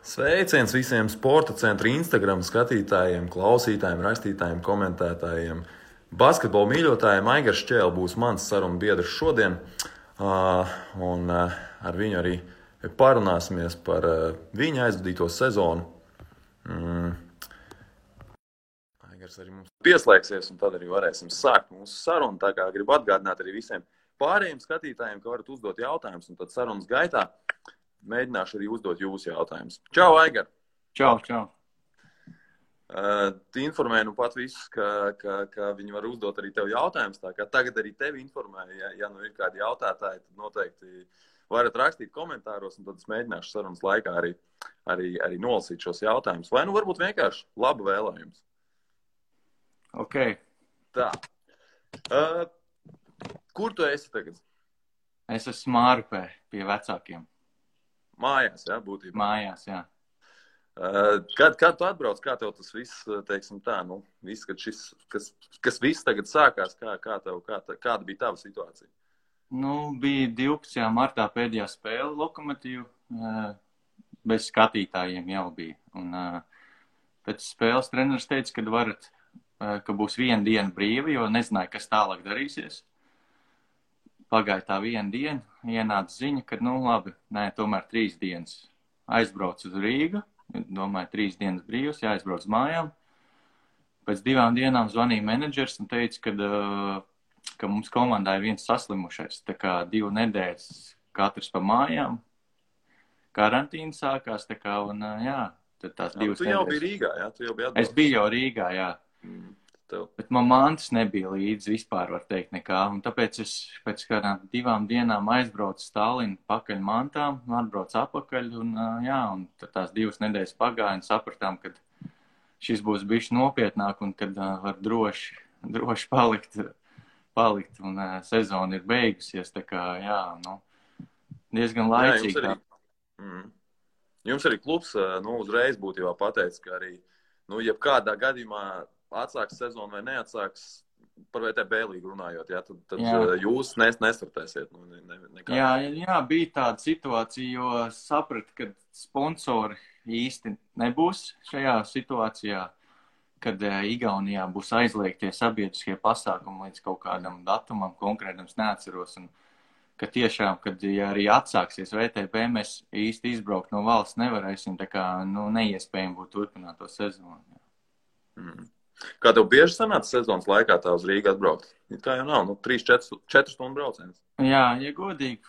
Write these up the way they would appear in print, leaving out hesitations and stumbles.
Sveiciens visiem sporta centra Instagram skatītājiem, klausītājiem, rakstītājiem, komentētājiem. Basketbola mīļotājiem Aigars Čēle būs mans sarunu biedrs šodien. Ar viņu arī parunāsimies par viņa aizvadīto sezonu. Aigars arī mums pieslēgsies, un tad arī varēsim sākt mūsu sarunu. Tā kā gribu atgādināt arī visiem pārējiem skatītājiem, ka varat uzdot jautājumus, un tad sarunas gaitā mēģināšu arī uzdot jūsu jautājumus. Čau, Aigar! Čau, čau! Informēju nu pat visus, ka viņi var uzdot arī tev jautājumus. Tā kā tagad arī tevi informēju, ja nu ir kādi jautātāji, tad noteikti varat rakstīt komentāros, un tad es mēģināšu sarunas laikā arī nolasīt šos jautājumus. Vai nu varbūt vienkārši labu vēlējumus. Ok. Tā. Kur tu esi tagad? Es esmu Mārupē pie vecākiem. Mājās, jā, būtībā. Mājās, jā. Kad tu atbrauc, kā tev tas viss, teiksim tā, viss, kas viss tagad sākās, kāda bija tava situācija? Bija 12. martā pēdējā spēle Lokomotīvu, bez skatītājiem jau bija. Un pēc spēles treneris teica, ka būs viena diena brīva, jo nezināja, kas tālāk darīsies. Pagāja tā viena diena, ienāca ziņa, ka, labi, tomēr 3 dienas. Aizbrauc uz Rīgu, domāju, 3 dienas brīvs, jāaizbrauc mājām. Pēc 2 dienām zvanīja menedžers un teica, ka mums komandā ir viens saslimušais. Tā kā 2 nedēļas katrs pa mājām. Karantīna sākās, tā kā, un tad tās 2 nedēļas. Tu jau biji Rīgā, jā? Tu jau biji atbrauc. Es biju jau Rīgā, jā. Bet man mantas nebija līdzi vispār, var teikt, nekā. Un tāpēc es pēc kādām 2 dienām aizbraucu Stalinu pakaļ mantām, atbraucu apakaļ, un tad tās 2 nedēļas pagāja un sapratām, ka šis būs bišķi nopietnāk un kad var droši palikt un sezona ir beigusies, tā kā, diezgan laicīgi. Jums arī klubs, uzreiz būtībā pateica, ka arī, jebkādā gadījumā atsāks sezonu vai neatsāks, par VTB līgu runājot, tad jūs nestartēsiet. Jā, bija tāda situācija, jo sapratu, ka sponsori īsti nebūs šajā situācijā, kad Igaunijā būs aizliegtie sabiedriskie pasākumi līdz kaut kādam datumam, konkrētams neatceros, un ka tiešām, kad arī atsāksies VTB, mēs īsti izbraukt no valsts nevarēsim, tā kā, neiespējami būtu turpināt to sezonu. Kā tev bieži sanāca sezonas laikā tā uz Rīgu atbraukt? Tā jau nav, 3-4 stundu brauciens. Jā, ja godīgi,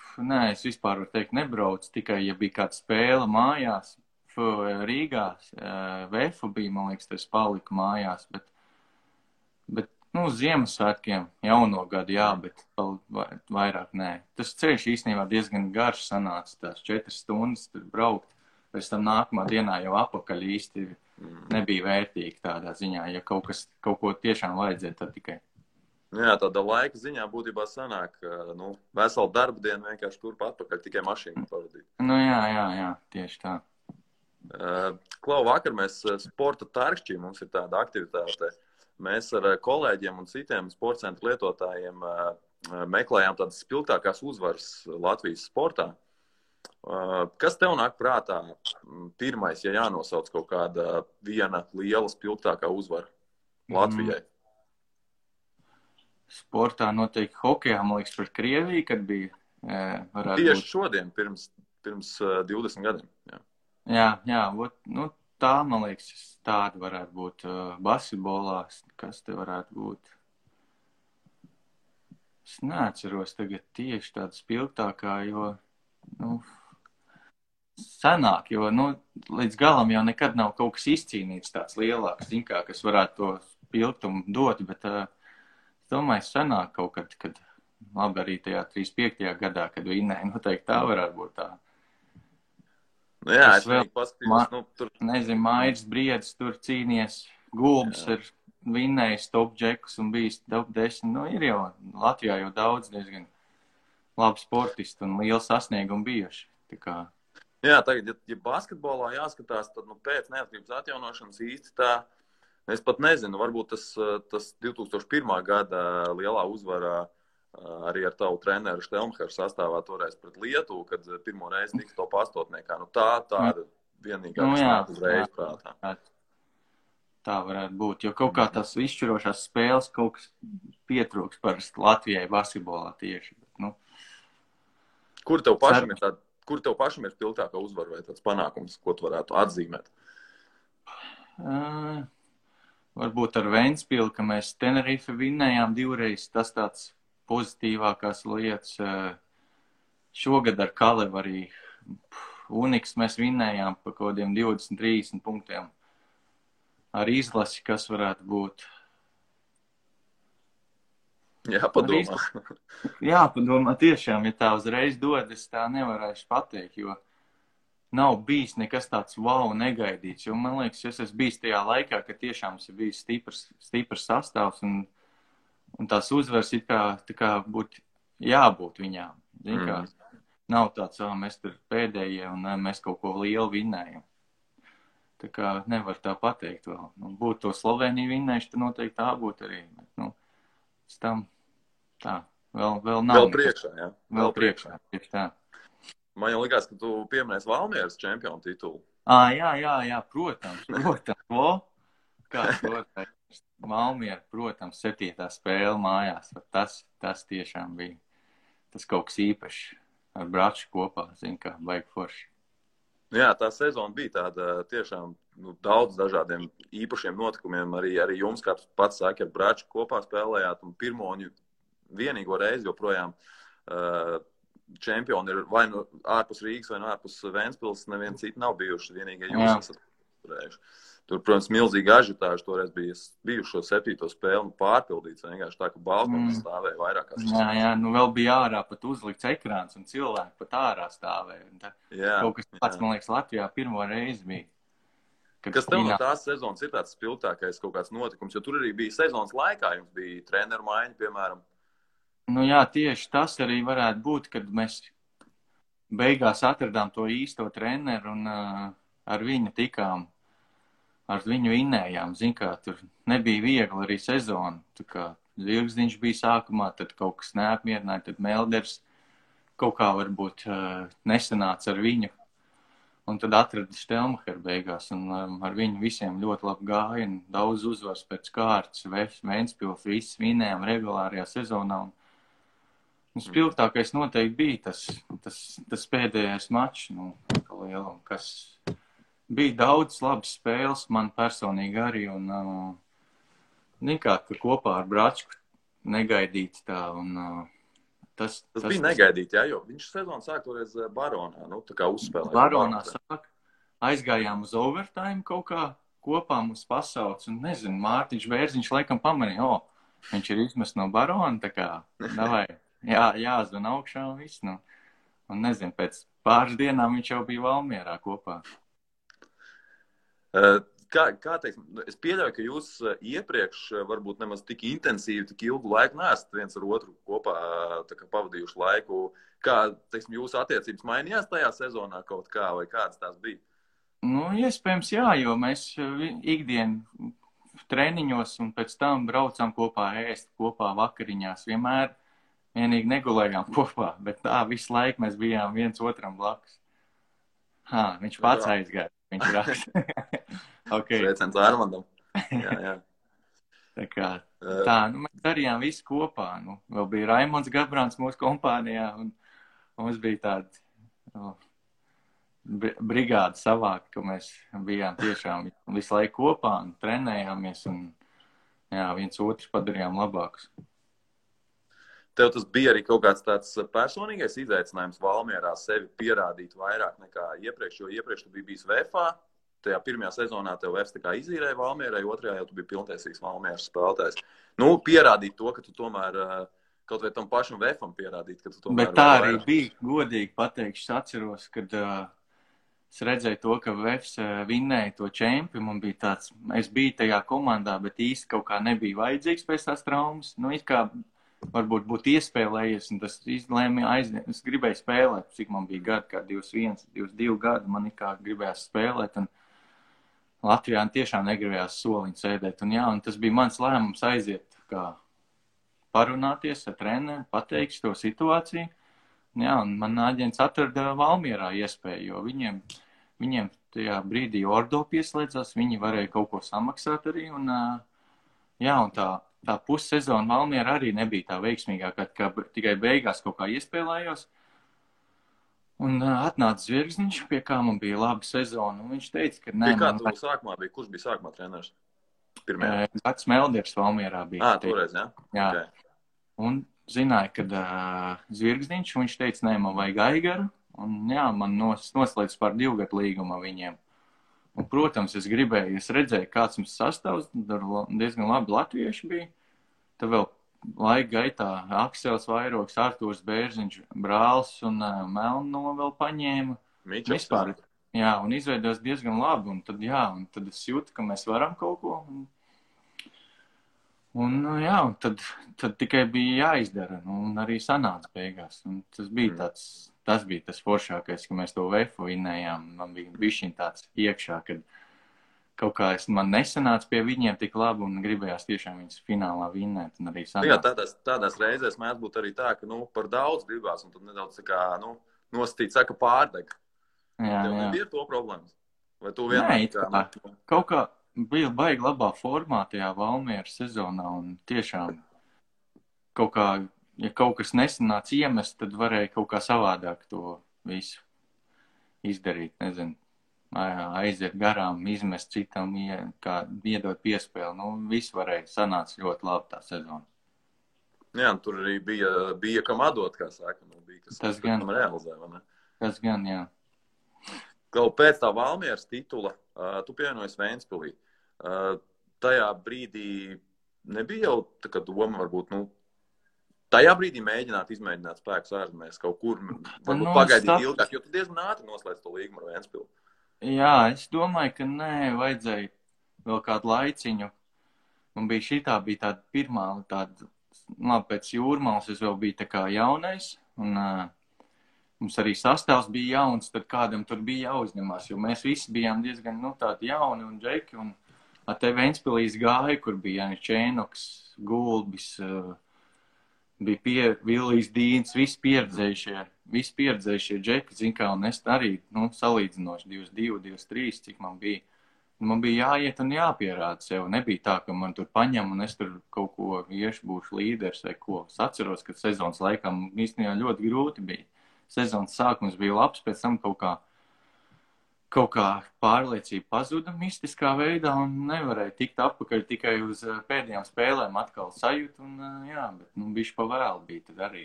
es vispār varu teikt nebraucu, tikai ja bija kāda spēle mājās, Rīgā, Vefu bija, man liekas, tas paliku mājās, bet Ziemassvētkiem, jauno gadu, jā, bet vairāk nē. Tas ceļš īstenībā diezgan garš sanāca, tās 4 stundas tur braukt, pēc tam nākamā dienā jau apakaļ īsti nebija vērtīgi tādā ziņā, ja kaut ko tiešām vajadzēja, tad tikai. Jā, tāda laika ziņā būtībā sanāk, veselu darba dienu vienkārši turp atpakaļ, tikai mašīnu pavadīt. Jā, tieši tā. Klau, vakar mēs sporta tarkšķī, mums ir tāda aktivitāte. Mēs ar kolēģiem un citiem sporta centra lietotājiem meklējām tādas spilgtākās uzvaras Latvijas sportā. Kas tev nāk prātā pirmais, ja jānosauc kaut kāda viena liela spilgtākā uzvara Latvijai? Sportā noteikti hokejā, man liekas, pret Krieviju, kad bija. Tieši šodien, pirms 20 gadiem. Jā, tā, man liekas, tāda varētu būt basketbolā. Kas te varētu būt? Es neatceros tagad tieši tāda spilgtākā, jo, senāk, jo, līdz galam jau nekad nav kaut kas izcīnīts tāds lielāks, kas varētu to spilgtumu dot, bet es domāju, senāk kaut kad labi arī tajā 35. gadā, kad vinnēja, noteikti tā varētu būt tā. Jā, es vēl paskatījos, tur. Nezinu, Mairis Briedis tur cīnies, Gulbs ir vinnējis top džekus un bijis top 10. Ir jau Latvijā jau daudz diezgan labi sportisti un lieli sasniegumi bijuši. Tā kā. Jā, tagad, ja basketbolā jāskatās, tad pēc neatkarības atjaunošanas īsti tā, es pat nezinu, varbūt tas 2001. Gada lielā uzvarā arī ar tavu treneru Štelmheru sastāvā toreiz pret Lietuvu, kad pirmo reizi tika top 8. Tāda vienīgā, kas nāk uzreiz prātā. Tā varētu būt, jo kaut kā tās izšķirošās spēles kaut kas pietrūks parasti Latvijai basketbolā tieši. Bet, Kur tev pašam ir spilgtākā uzvara vai tāds panākums, ko tu varētu atzīmēt? Varbūt ar Ventspili, ka mēs Tenerife vinnējām 2 reizes, tas tāds pozitīvākās lietas. Šogad ar Kalevu arī Uniks mēs vinnējām pa kaut kādiem 20-30 punktiem. Ar izlasi, kas varētu būt. Jāpadomā. Jāpadomā tiešām, ja tā uzreiz dod, es tā nevarēšu pateikt, jo nav bijis nekas tāds wow negaidīts. Jo man liekas, es esmu bijis tajā laikā, ka tiešām ir bijis stiprs sastāvs un tās uzvaras it kā būtu jābūt viņām. Zin kā, nav tāds, mēs tur pēdējie un mēs kaut ko lielu vinnējam. Tā kā nevar tā pateikt vēl. Būtu to Sloveniju vinnējuši, tad noteikti tā būtu arī. Bet, pēc tam tā, vēl nav. Vēl priekšā, jā? Vēl priekšā, tieši tā. Man jau likās, ka tu pieminēsi Valmieras čempionu titulu. Jā, protams. Kā protams. Valmiera, protams, 7. spēle mājās. Tas tiešām bija. Tas kaut kas īpašs. Ar Braču kopā, kā baigi forši. Jā, tā sezona bija tāda tiešām daudz dažādiem īpašiem notikumiem. Arī jums, kā pats saki, ar Braču kopā spēlējāt un pirmo un vienīgo reizi joprojām čempioni ir vai nu ārpus Rīgas vai nu ārpus Ventspils, neviens citi nav bijuši, vienīgie jūs esat turējuši. Tur, protams, milzīga ažitāža toreiz bija bijušo 7. spēli pārpildīts, vienkārši tā, ka balkons stāvēja vairākās. Jā, vēl bija ārā pat uzlikts ekrāns un cilvēki pat ārā stāvēja. Kaut kas pats, man liekas, Latvijā pirmo reizi bija. Kas tev no tās sezonas ir tāds spilgtākais kaut kāds notikums, jo tur arī bija sezonas laikā, jums bija treneru maiņa, piemēram. Jā, tieši tas arī varētu būt, kad mēs beigās atradām to īsto treneru un ar viņu tikām. Ar viņu vinnējām, kā tur nebija viegli arī sezona. Tā kā Zirgzdiņš bija sākumā, tad kaut kas neapmierināja, tad Melders kaut kā varbūt nesanāca ar viņu. Un tad atrada Štelmacher beigās, un ar viņu visiem ļoti labi gāja, un daudz uzvars pēc kārtas, Ventspils, viss vinnējām regulārajā sezonā. Un spilgtākais noteikti bija tas pēdējais mačs, kas... Bija daudz labas spēles, man personīgi arī, un ka kopā ar Bračku negaidīts tā, un tas bija negaidīti, jā, jo viņš sezonu sāk toreiz Baronā, tā kā uzspēlēja. Baronā sāk, aizgājām uz overtime kaut kā, kopā mums pasauc, un nezinu, Mārtiņš Bērziņš laikam pamanīja, viņš ir izmest no Barona, tā kā, davai, jāzvan augšā un viss, un nezinu, pēc pāris dienām viņš jau bija Valmierā kopā. Kā teiksim, es pieļauju, ka jūs iepriekš varbūt nemaz tik intensīvi, tik ilgu laiku neesat viens ar otru kopā pavadījuši laiku. Kā, teiksim, jūsu attiecības mainījās tajā sezonā kaut kā, vai kādas tās bija? Iespējams, jā, jo mēs ikdienu treniņos un pēc tam braucām kopā ēst, kopā vakariņās. Vienīgi negulējām kopā, bet tā visu laiku mēs bijām viens otram blakus. Viņš pats aizgāja. Viņš raksta. Okay. Sveiciens Armandam. Jā. Tā kā mēs darījām visu kopā. Vēl bija Raimonds Gabrāns mūsu kompānijā, un mums bija tāda brigāda savāka, ka mēs bijām tiešām visu laiku kopā un trenējāmies, un viens otrs padarījām labākus. Tev tas bija arī kaut kāds tāds personīgais izaicinājums Valmierā sevi pierādīt vairāk nekā iepriekš, jo iepriekš tu biji bijis VFA, tajā pirmajā sezonā tev VFs tā kā izīrēja Valmierai, otrajā jau tu biji pilntiesīgs Valmieras spēlētājs. Pierādīt to, ka tu tomēr kaut vai tam pašam VFam pierādīt, ka tu tomēr... Bet tā arī bija, godīgi pateikšu, es atceros, kad es redzēju to, ka VFs vinnēja to čempi, man bija tāds, es biju tajā komandā, bet īsti kaut kā nebija vajadzīgs pēc tās traumas, it kā varbūt būtu iespēlējies, un tas izlēma aiziet. Es gribēju spēlēt, cik man bija gadi, kā 21, 22 gadi, man kā gribējās spēlēt, un Latvijā tiešām negribējās soliņu sēdēt, un tas bija mans lēmums aiziet, kā parunāties ar treneru, pateikt to situāciju, un man aģents atrada Valmierā iespēju, jo viņiem tajā brīdī Ordo pieslēdzās, viņi varēja kaut ko samaksāt arī, un tā pussezona Valmiera arī nebija tā veiksmīgākā, kā tikai beigās kaut kā iespēlējos. Un atnāca Zvirgzniņš, pie kā man bija laba sezona, un viņš teica, ka nē, Kurš bija sākumā treneris? Gads Melders Valmierā bija. Toreiz, jā? Jā. Okay. Un zināja, ka Zvirgzniņš, viņš teica, nē, man vajag Aigaru, un jā, man noslēdz par 2 gadu līgumu viņiem. Un, protams, es redzēju, kāds mums sastāvs, diezgan labi latvieši bija. Tad vēl laika gaitā Aksels Vairoks, Artūrs Bērziņš, Brāls un Melno vēl paņēma. Vispār, jā, un izveidojās diezgan labi, un tad es jūtu, ka mēs varam kaut ko. Un tad tikai bija jāizdara, un arī sanāca beigās. Un tas bija tas foršākais, ka mēs to VF vinnējām. Man bija bišķiņ tāds iekšā, kad kaut kā man nesanāca pie viņiem tik labi un gribējās tiešām viņus finālā vinnēt. Un arī sanāca. Jā, tādās reizēs mēdz būt arī tā, ka par daudz gribās, un tad nedaudz tā kā, nostīt saka pārdeg. Jā. Tev nebija to problēmas? Vai tu vienmēr? Kaut kā bija baigi labā formā tajā Valmieras sezonā, un tiešām kaut kā, ja kaut kas nesanāca iemest, tad varēja kaut kā savādāk to visu izdarīt, nezinu, aiziet garām, izmest citam, kā iedot piespēli, viss varēja, sanāca ļoti labi tā sezona. Jā, tur arī bija kam atdot, kā saka, bija kas tam realizē, vai ne? Tas gan, jā. Pēc tā Valmieras titula, tu pievienojies Ventspilī. Tajā brīdī nebija jau tā kā doma, varbūt, tajā brīdī izmēģināt spēkus ārzemēs kaut kur, varbūt pagaidīt ilgāk, jo tu diezgan ātri noslēdz to līgumu ar Ventspilu. Jā, es domāju, ka nē, vajadzēja vēl kādu laiciņu. Man bija tāda pirmā, pēc Jūrmālas es vēl biju tā kā jaunais, un mums arī sastāvs bija jauns, tad kādam tur bija jāuzņemās, jo mēs visi bijām diezgan, tādi jauni un džeki, un te Ventspilīs gāja, kur bija Jānis Čēnoks, Gulbis, bija Villijs Dīns, visi pieredzējušie džeki, zin kā, un es arī, salīdzinoši 22, 23, cik man bija. Man bija jāiet un jāpierāda sev. Nebija tā, ka man tur paņem un es tur kaut ko būšu līderis vai ko. Es atceros, ka sezonas laikā īstenībā ļoti grūti bija. Sezonas sākums bija labs, pēc tam kaut kā pārliecība pazuda mistiskā veidā un nevarēja tikt atpakaļ tikai uz pēdējām spēlēm atkal sajūt. Un, bet bišķi pa vēlu bija tad arī,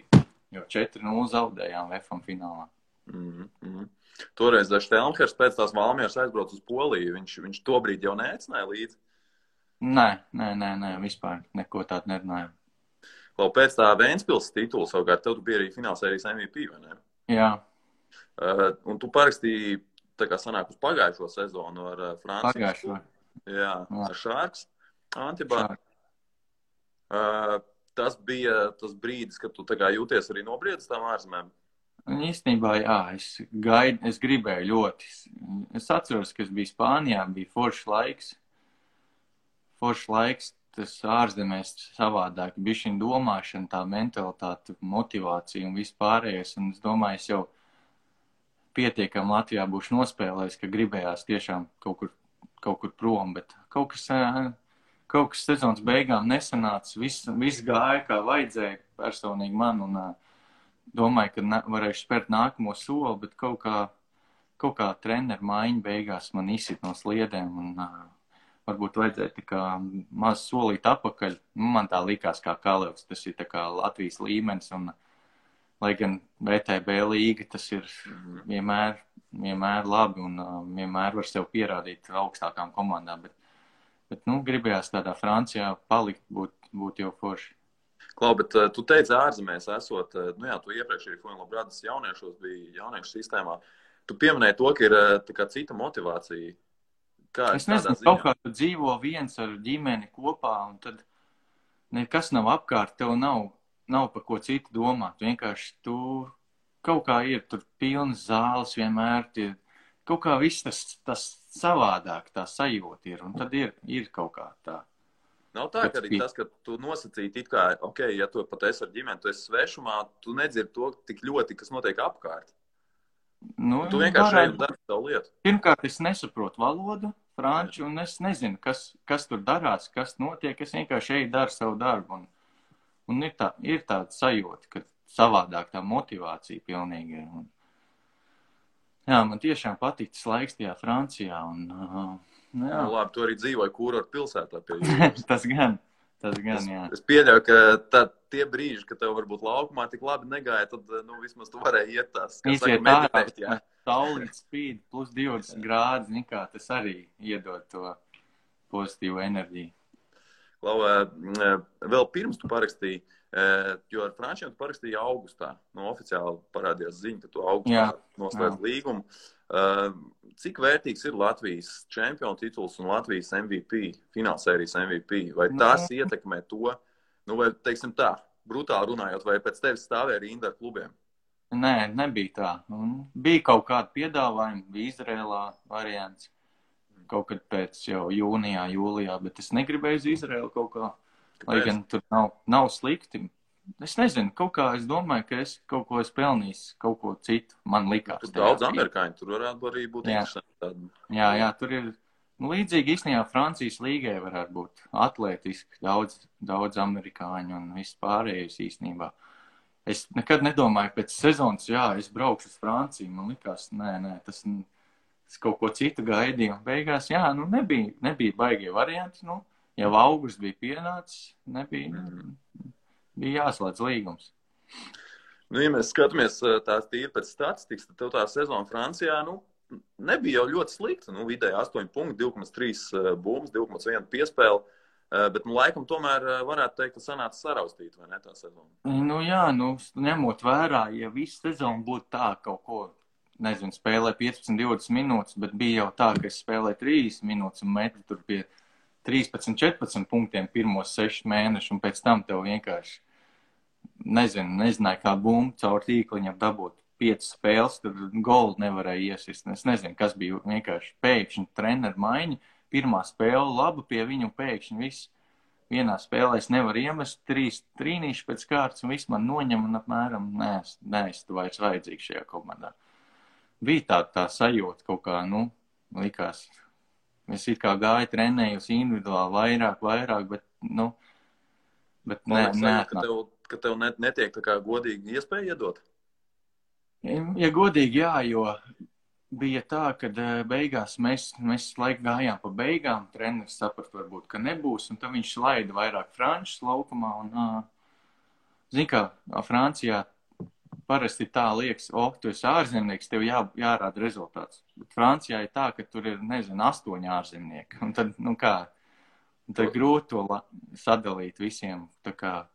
jo 4-0 zaudējām VF finālā. Toreiz Štelmhers pēc tās Valmieras aizbrauc uz Poliju. Viņš tobrīd jau neaicināja līdzi? Nē, vispār neko tādu nerunājām. Pēc tā Ventspils titula savukārt, tev tu bija arī finālsērijas MVP, vai ne? Jā. Un tu parakstīji, tā kā sanāk uz pagājušo sezonu ar Francijas. Pagājušo. Jā, ar Šārks, Antibā. Tas bija tas brīdis, kad tu tā kā jūties arī nobriedis tām ārzemēm? Īstenībā, jā, es gribēju ļoti. Es atceros, ka es biju Spānijā, bija foršs laiks, tas ārzemēs savādāk, bišķiņ domāšana, tā mentalitāte, motivācija un viss pārējais, un es domāju, es jau pietiekam Latvijā būšu nospēlējis, ka gribējās tiešām kaut kur prom, bet kaut kas sezonas beigām nesanāca, viss gāja, kā vajadzēja personīgi man, un domāju, ka varēšu spērt nākamo soli, bet kaut kā treneru maiņa beigās man izsit no sliedēm, un varbūt vajadzēja tā kā maz solīt apakaļ. Man tā likās kā Kalevs, tas ir tā kā Latvijas līmenis, un lai gan VTB līga, tas ir vienmēr labi, un vienmēr var sev pierādīt augstākām komandām, bet gribējās tādā Francijā palikt, būt jau forši. Klau, bet tu teici ārzemēs esot, tu iepriekš arī Fuenlabradas jauniešos bija jauniešu sistēmā. Tu pieminēji to, ka ir tā kā cita motivācija. Es nezinu, kaut kā tu dzīvo viens ar ģimeni kopā, un tad nekas nav apkārt, tev nav par ko citu domāt. Vienkārši tu kaut kā ir tur pilnas zāles vienmēr, kaut kā viss tas savādāk, tā sajūta ir, un tad ir kaut kā tā. Nav tā, ka arī tas, ka tu nosacīti it kā, ja tu pat esi ar ģimeni, tu esi svešumā, tu nedzirdi to tik ļoti, kas notiek apkārt. Nu, Tu vienkārši šeit dari savu lietu. Pirmkārt, es nesaprotu valodu, franču, un es nezinu, kas tur darās, kas notiek. Es vienkārši eju daru savu darbu. Un ir tāda sajūta, ka savādāk tā motivācija pilnīgi. Jā, man tiešām patīk tas laiks tajā Francijā. Jā. Nu, labi, tu arī dzīvoji kurortu pilsētā pie jūras. Tas gan, jā. Es pieļauju, ka tie brīži, kad tev varbūt laukumā tik labi negāja, tad vismaz tu varēji iet tās, kā saka, meditēt, jā. Saulīt spīd plus 20 grādi, nekā tas arī iedod to pozitīvu enerģiju. Klau, vēl pirms tu parakstīji, jo ar frančiem tu parakstīji augustā. Oficiāli parādījās ziņa, ka tu augustā noslēdz līgumu. Cik vērtīgs ir Latvijas čempionu tituls un Latvijas MVP, finālsērijas MVP? Vai tas ietekmē to, vai, teiksim tā, brutāli runājot, vai pēc tevis stāvēja rinda ar klubiem? Nē, nebija tā. Bija kaut kādi piedāvājumi, bija Izrēlā variants. Kaut kad pēc jau jūnijā, jūlijā, bet es negribēju uz Izrēlu kaut kā. Lai gan tur nav slikti. Es nezinu, kaut kā es domāju, ka es kaut ko esmu pelnījis, kaut ko citu. Man likās. Tur daudz amerikāņu, tur varētu arī būt interesanti. Jā, tur ir līdzīgi īstenībā Francijas līgai varētu būt atlētiski daudz amerikāņu un viss pārējais īstenībā. Es nekad nedomāju, pēc sezonas, es braukšu uz Franciju. Man likās, nē, tas kaut ko citu gaidīju. Beigās, nebija baigie varianti. Jau augusts bija pienācis, bija jāslēdz līgums. Ja mēs skatāmies tās tīri pēc statistikas, tad tev tā sezona Francijā, nebija jau ļoti slikta. Vidēji 8 punkti, 2,3 bumbas, 2,1 piespēle. Bet, laikam, tomēr varētu teikt, ka sanāca saraustīt, vai ne, tā sezona? Ņemot vērā, ja visu sezonu būtu tā kaut ko, nezinu, spēlē 15-20 minūtes, bet bija jau tā, ka es spēlēju 30 minūtes un metu tur pie 13-14 punktiem pirmos 6 mēnešus, un pēc tam tev vienkārši, nezināju, kā bumbu caur tīkliņam dabūt 5 spēles, tur goldu nevarēja iesist. Es nezinu, kas bija vienkārši pēkšņi treneru maiņa. Pirmā spēle laba pie viņu pēkšņi viss. Vienā spēlē es nevaru iemest 3 trīnīši pēc kārtas un viss man noņem un apmēram es tu vairs vajadzīgs šajā komandā. Bija tā sajūta kaut kā, likās. Es it kā gāju trenējus individuāli vairāk, bet ka tev netiek tā kā godīgi iespēja iedot? Ja godīgi, jo bija tā, ka beigās mēs laiku gājām pa beigām, treneris saprast varbūt, ka nebūs, un tad viņš laida vairāk frančus laukumā, un, zin kā, Francijā parasti tā liekas, tu esi ārzemnieks, tev jārāda rezultāts. Bet Francijā ir tā, ka tur ir, 8 ārzemnieki, un tad, tad grūti to sadalīt visiem, tā kā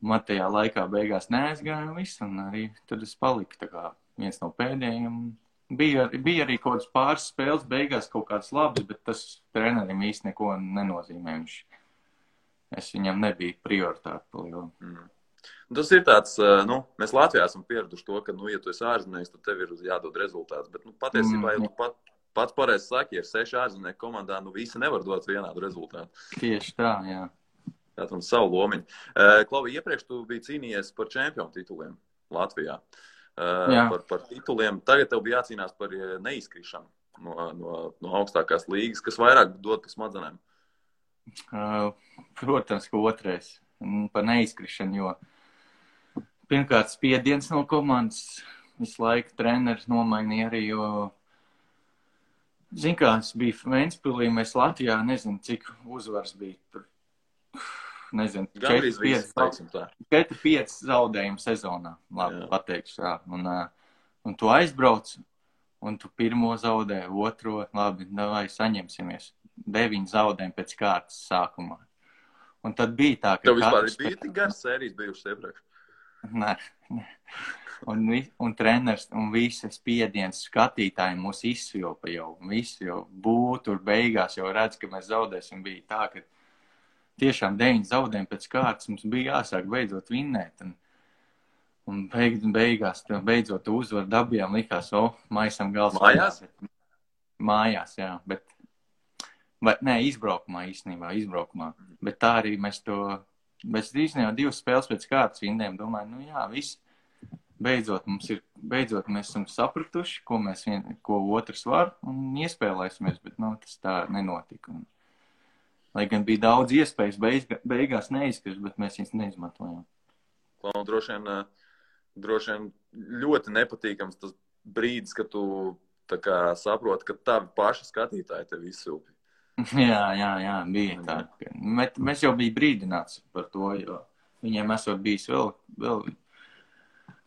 man tajā laikā beigās neaizgāja un viss, un arī tad es paliku tā kā viens no pēdējiem. Bija arī kaut kāds pāris spēles beigās kaut kāds labs, bet tas trenerim īsti neko nenozīmē. Es viņam nebija prioritāte pa lielu. Tas ir tāds, mēs Latvijā esam pieraduši to, ka, ja tu esi ārzemnieks, tad tev ir jādod rezultāts. Bet, patiesībā, ja tu pats pareizi saki, ja ir 6 ārzemnieku komandā, visi nevar dot vienādu rezultātu. Tieši tā, jā. Tātad savu lomiņu. Klauvi, iepriekš tu biji cīnījies par čempionu tituliem Latvijā. Par tituliem. Tagad tev bija jācīnās par neizkrišanu no augstākās līgas, kas vairāk dod pa smadzenēm. Protams, ka otrais. Par neizkrišanu, jo pirmkārt spiediens no komandas visu laiku treneris nomainīja arī, jo zin kā, es biju Ventspilī, mēs Latvijā, nezinu, cik uzvars bija tur. Nezinu, 4-5 zaudējumu sezonā, labi, pateikšu, jā. Un tu aizbrauc, un tu pirmo zaudē, otro, labi, vai saņemsimies. 9 zaudējumi pēc kārtas sākumā. Un tad bija tā, ka... Tev vispār bija tik garas sērijas bijušas iepriekš? Nē. Un treneris un visas spiediens skatītāji mūs izsvilpa jau. Visi jau būtu tur beigās, jau redz, ka mēs zaudēsim. Bija tā, ka tiešām 9 zaudējumi pēc kārtas mums bija jāsāk beidzot vinnēt. Un beigās, beidzot uzvaru dabījām, likās, maisam gals. Mājās? Mājās, jā. Izbraukumā īstenībā, Bet tā arī mēs īstenībā 2 spēles pēc kārtas vinnējām. Domāju, viss beidzot mēs esam sapratuši, ko otrs var, un iespēlēsimies, bet, tas tā nenotika. Lai gan bija daudz iespējas beigās neizkrist, bet mēs viņas neizmantojām. Droši vien ļoti nepatīkams tas brīdis, kad tu tā kā saproti, ka tavi paši skatītāji tevi izsilpi. Jā, bija tā. Mēs jau bija brīdināts par to, jo viņiem esot bijis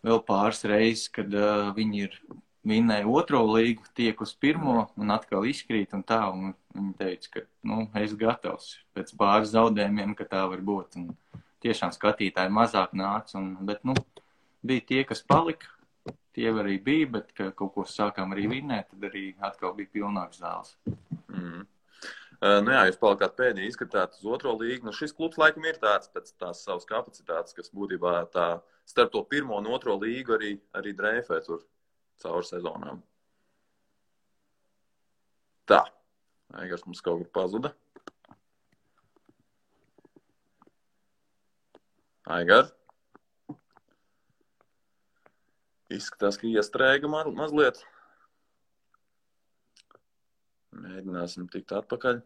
vēl pāris reizes, kad viņi ir vinnēja 2. līgu, tiek uz 1. un atkal izkrīt un tā, un viņi teica, ka, es gatavs pēc pāris zaudējumiem, ka tā var būt, un tiešām skatītāji mazāk nāca, bet, bija tie, kas palika, tie arī bija, bet, ka kaut ko sākām arī vinnēt, tad arī atkal bija pilnāks zāles. Jūs palikāt pēdējā izskatāt uz 2. līgu. Šis klubs laikam ir tāds pēc tās savas kapacitātes, kas būtībā tā starp to 1. un 2. līgu arī dreifē tur cauri sezonām. Tā. Aigars mums kaut kur pazuda. Aigar. Izskatās, ka iestrēga mazliet. Mēģināsim tikt atpakaļ.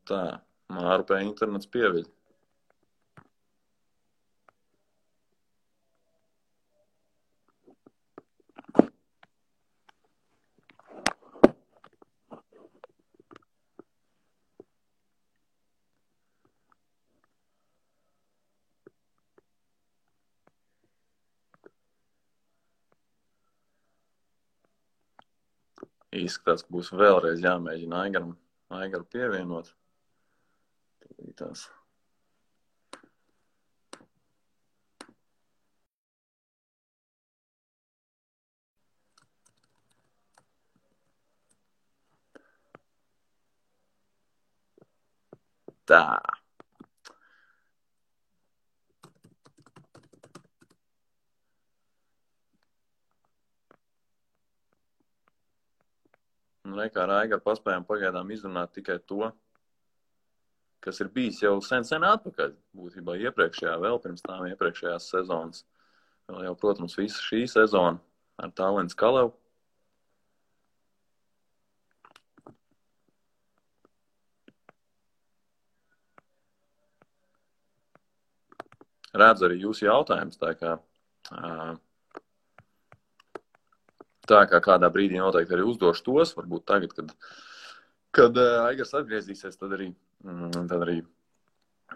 Tā, Mārupē internets pieviļ. Izskatās, ka būs vēlreiz jāmēģina Aigaru pievienot. Tās. Tā. Kā ar Aigaru paspējām pagaidām izrunāt tikai to, kas ir bijis jau sen atpakaļ. Būtībā vēl pirms tām iepriekšējās sezonas. Vēl jau, protams, visa šī sezona ar Tallinnas Kalevu. Redzu arī jūsu jautājumus, tā kā kādā brīdī noteikti arī uzdošu tos, varbūt tagad, kad Aigars atgriezīsies, tad arī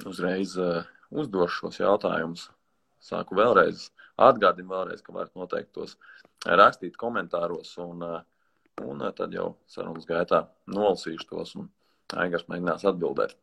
uzreiz uzdošu šos jautājumus. Sāku atgādinu vēlreiz, ka varat noteikti tos rakstīt komentāros, un tad jau sarunas gaitā nolasīšu tos, un Aigars mēģinās atbildēt.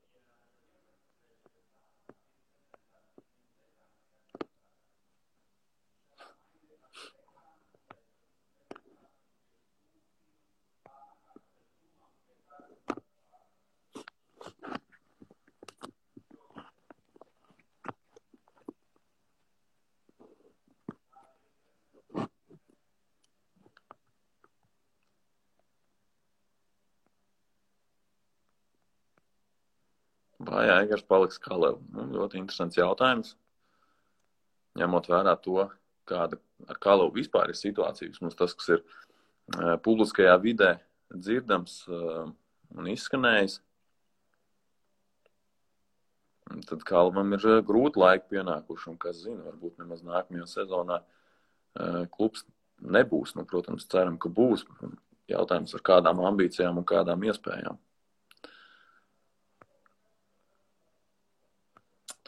Vai Aigars paliks Kalevu? Ļoti interesants jautājums. Ņemot vērā to, kāda ar Kalevu vispār ir situācija, mums tas, kas ir publiskajā vidē dzirdams un izskanējis, tad Kalevam ir grūti laiki pienākuši, un kas zina, varbūt nemaz nākamajā sezonā klubs nebūs. Protams, ceram, ka būs. Jautājums ar kādām ambīcijām un kādām iespējām.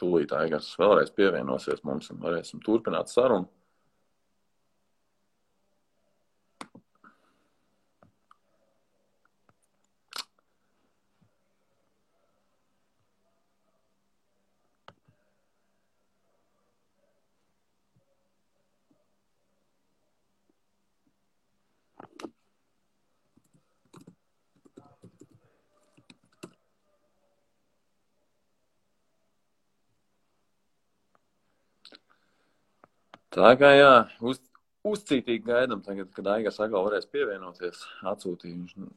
Tūlīt Aigars vēlreiz pievienosies mums un varēsim turpināt sarunu. Tā kā jā, uzcītīgi gaidam tagad, kad Aigars atkal varēs pievienoties. Atsūtīju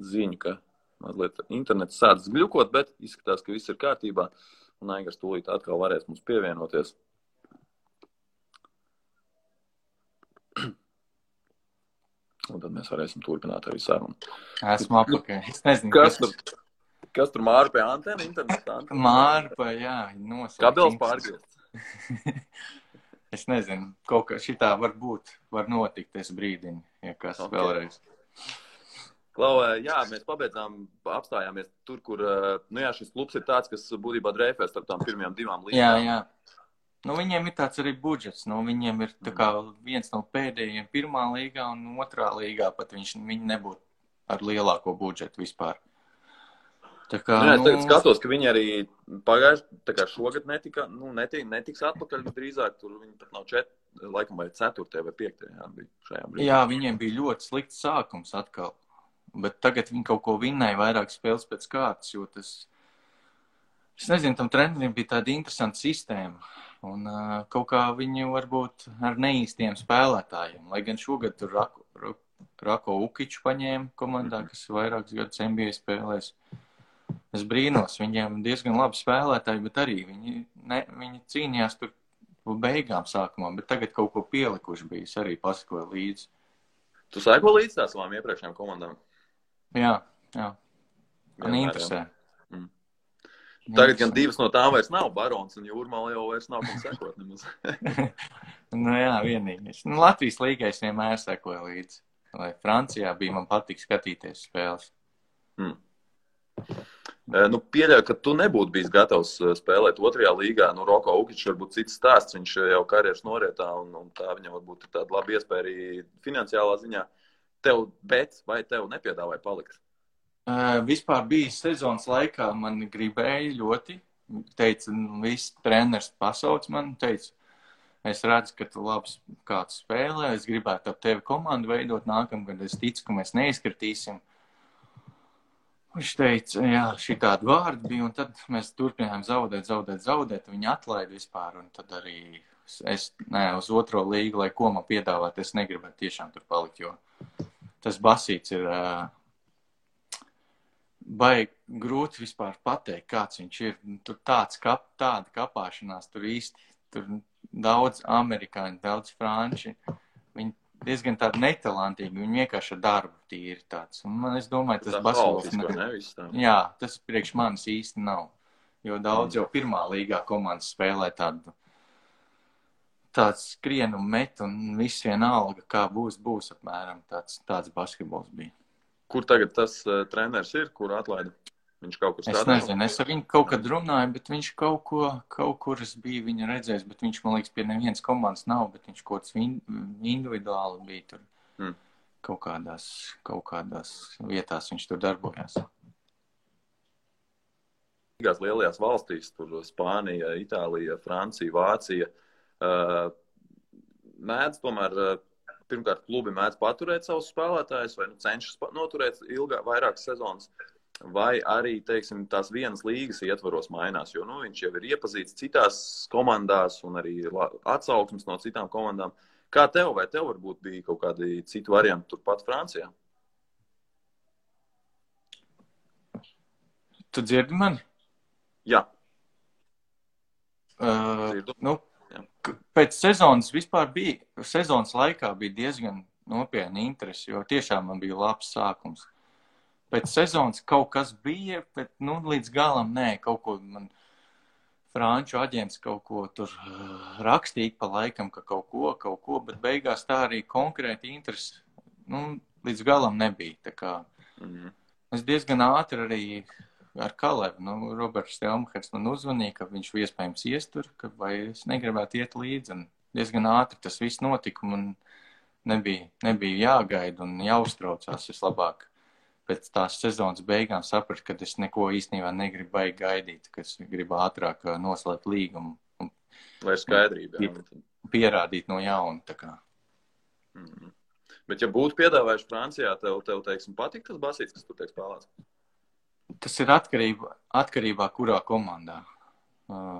ziņu, ka mazliet internets sācis gļukot, bet izskatās, ka viss ir kārtībā. Un Aigars tūlīt atkal varēs mums pievienoties. Un tad mēs varēsim turpināt arī sarunu. Esmu apakaļ. Es nezinu, kas tur Māra pie antena, interneta antena? Māra, jā, noslēgts. Kabels pārgriezt. Es nezinu, kaut kā šitā var notikt, es brīdinu, ja kas vēlreiz. Klau, jā, mēs apstājāmies tur, kur, šis klubs ir tāds, kas būtībā dreifē starp tām pirmajām 2 līgām. Jā. Nu, viņiem ir tāds arī budžets, viņiem ir tā kā viens no pēdējiem 1. līgā un 2. līgā, pat viņi nebūtu ar lielāko budžetu vispār. Tā kā, es skatos, ka viņi arī šogad netiks atpakaļ drīzāk, tur viņi pat nav 4, vai 4. vai 5. bija šajā brīdī. Jā, viņiem bija ļoti slikts sākums atkal, bet tagad viņi kaut ko vinnēja vairāk spēles pēc kārtas, jo es nezinu, tam treneriem bija tāda interesanta sistēma. Un kaut kā viņi varbūt ar neīstiem spēlētājiem, lai gan šogad tur Rako Ukiču paņēma komandā, kas vairākus gadus NBA spēlēs. Es brīnos, viņiem diezgan labi spēlētāji, bet arī viņi cīnījās tur beigām sākumā, bet tagad kaut ko pielikuši bija, es arī pasakoju līdzi. Tu sēko līdzi tās savām iepriekšējām komandām? Jā. Man interesē. Tagad gan 2 no tām vairs nav, Barons un Jūrmala jau vairs nav, kam sekot nemaz. Jā, vienīgais. Latvijas līgai es vienmēr sekoju līdzi. Lai Francijā bija, man patīk skatīties spēles. Pieļauju, ka tu nebūtu bijis gatavs spēlēt 2. līgā. Roko Ukičs varbūt cits stāsts, viņš jau karjeras norietā, un tā viņam varbūt ir tāda laba iespēja arī finansiālā ziņā. Vai tev nepiedāvāja palikt? Vispār bija sezonas laikā, man gribēja ļoti. Teica, viss treneris pasauc man, teica, es redzu, ka tu labs kāds spēlē, es gribētu ap tevi komandu veidot nākamgad, es ticu, ka mēs neizkritīsim. Viņš teica, jā, šitādi vārdi bija, un tad mēs turpinājām zaudēt, viņi atlaida vispār, un tad arī es, uz 2. līgu, lai ko man piedāvāt, es negribētu tiešām tur palikt, jo tas basīts ir baigi grūti vispār pateikt, kāds viņš ir. Tur tāda kapāšanās, tur daudz amerikāņu, daudz franči, viņi diezgan tādi netalantīgi, viņi vienkārši ar darbu tīri tāds. Un es domāju, tas basketbols jā, tas priekš manis īsti nav. Jo daudz jau 1. līgā komandas spēlē tāds skrien un met, un viss vienalga, kā būs apmēram tāds basketbols bija. Kur tagad tas treneris ir, kur atlaida? Viņš kaut kur strādā? Es nezinu, es ar viņu kaut kad runāju, bet viņš kaut kur es biju viņu redzējis, bet viņš, man liekas, pie nevienas komandas nav, bet viņš kaut kāds individuāli bija tur. Kaut kādās vietās viņš tur darbojās. Lielajās valstīs, tur Spānija, Itālija, Francija, Vācija, mēdz tomēr, pirmkārt, klubi mēdz paturēt savus spēlētājus, vai cenšas noturēt vairākas sezonas, vai arī, teiksim, tās vienas līgas ietvaros mainās, jo, viņš jau ir iepazīts citās komandās un arī atsauksmes no citām komandām. Kā tev, vai tev varbūt bija kaut kādi citi varianti turpat Francijā? Tu dzirdi mani? Jā. Pēc sezonas vispār sezonas laikā bija diezgan nopietna interesi, jo tiešām man bija labs sākums. Pēc sezonas kaut kas bija, bet, līdz galam nē, kaut ko man franču aģents kaut ko tur rakstīja pa laikam, ka kaut ko, bet beigās tā arī konkrēti interesi, līdz galam nebija. Tā kā es diezgan ātri arī ar Kalevu, Roberts Stelmhers man uzvanīja, ka viņš iespējams iestur, vai es negribētu iet līdzi, un diezgan ātri tas viss notika, man nebija jāgaida un jāuztraucās, es labāk pēc tās sezonas beigām sapratu, ka es neko īstenībā negribu baigi gaidīt, ka es gribu ātrāk noslēgt līgumu. Lai skaidrība. Pierādīt no jauna, tā kā. Bet ja būtu piedāvājuši Francijā, tev teiksim, patīk tas basīts, kas tur tiek spēlēts? Tas ir atkarībā kurā komandā.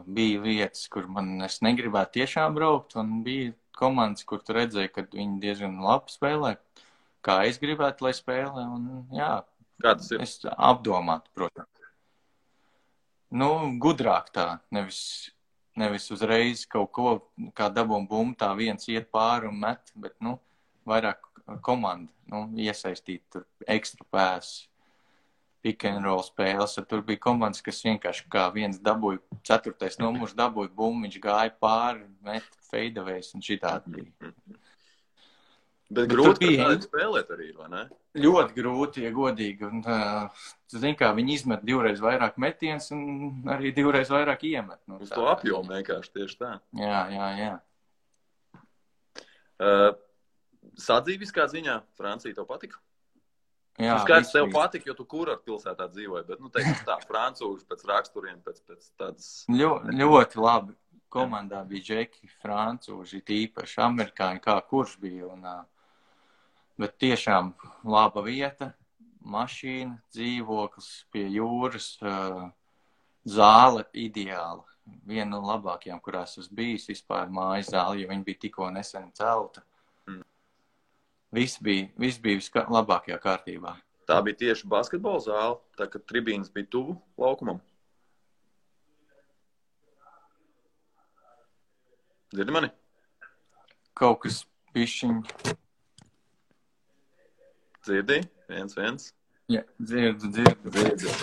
Bija vietas, kur es negribētu tiešām braukt, un bija komandas, kur tu redzēji, ka viņi diezgan labi spēlē, kā es gribētu, lai spēlē, un jā, Kā tas ir? Es apdomātu, protams. Nu, gudrāk tā, nevis uzreiz kaut ko, kā dabūm bumbu, tā viens iet pāri un met, bet, nu, vairāk komanda, nu, iesaistīt tur ekstra pēs, pick and roll spēles, tur bija komandas, kas vienkārši kā viens dabūja, 4. numurs dabūja bumbu, viņš gāja pāri, met fadeaways un šitādi bija. Bet grūti, ka tādi spēlēt arī, vai ne? Ļoti grūti, ja godīgi. Un, zin kā, viņi izmet 2 reiz vairāk metiens un arī 2 reiz vairāk iemet. Nu, uz to apjomu vienkārši tieši tā. Jā. Sadzīviskā ziņā Francija tev patika? Jā, skaidrs, tev patika, jo tu kurort pilsētā dzīvoji, bet, nu, teiksim tā, francūži pēc raksturiem, pēc tādas... Ļoti labi. Komandā bija džeki, francūži, tīpaši amerikāņi, kā kurš bija. Un, bet tiešām laba vieta, mašīna, dzīvoklis pie jūras, zāle ideāla. Viena no labākajām, kurās es bijis vispār mājas zāle, jo viņa bija tikko nesen celta. Viss bija labākajā kārtībā. Tā bija tieši basketbola zāle, tā ka tribīnas bija tuvu laukumam. Dzirdi mani? Kaut kas bišķiņ. Dzirdi? 1-1. Jā, dzirdu.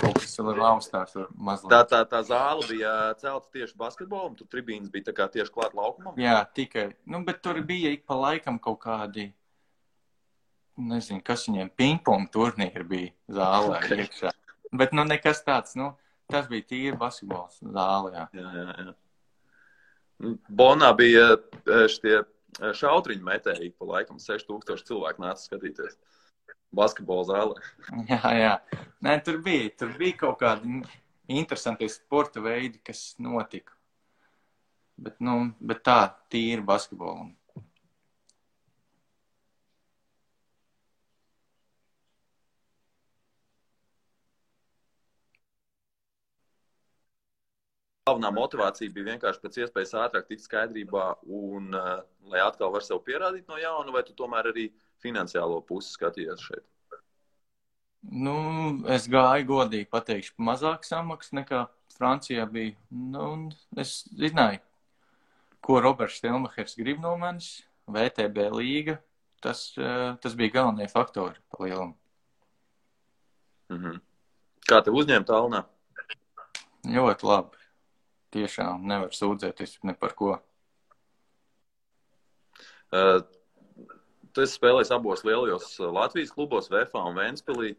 Kaut kas vēl ir augstāk mazliet. Tā zāle bija celta tieši basketbolam, tur tribīnas bija tā kā tieši klāt laukumam? Jā, tikai. Nu, bet tur bija ik pa laikam kaut kādi, nezinu, kas viņiem pingpong turnīri bija zālē iekšā. Bet, nu, nekas tāds, nu, tas bija tīri basketbols zāle, jā. Jā. Bonā bija šitie šautriņu metēji, pa laikam 6000 cilvēku nāca skatīties basketbola zālē. Jā. Nē, tur bija kaut kādi interesanti sporta veidi, kas notika. Bet tā, tīri basketbolam. Galvenā motivācija bija vienkārši pēc iespējas ātrāk tikt skaidrībā un lai atkal var sev pierādīt no jauna, vai tu tomēr arī finansiālo pusi skatījies šeit? Nu, es gāju godīgi pateikšu, mazāk samaks nekā Francijā bija. Nu, es zināju, ko Roberts Stelmachers grib no manis, VTB līga, tas bija galvenie faktori pa lielumu. Kā tev uzņēma Tallinā? Ļoti labi. Tiešām nevar sūdzēties ne par ko. Tu esi spēlējis abos lielajos Latvijas klubos, VFA un Ventspilī.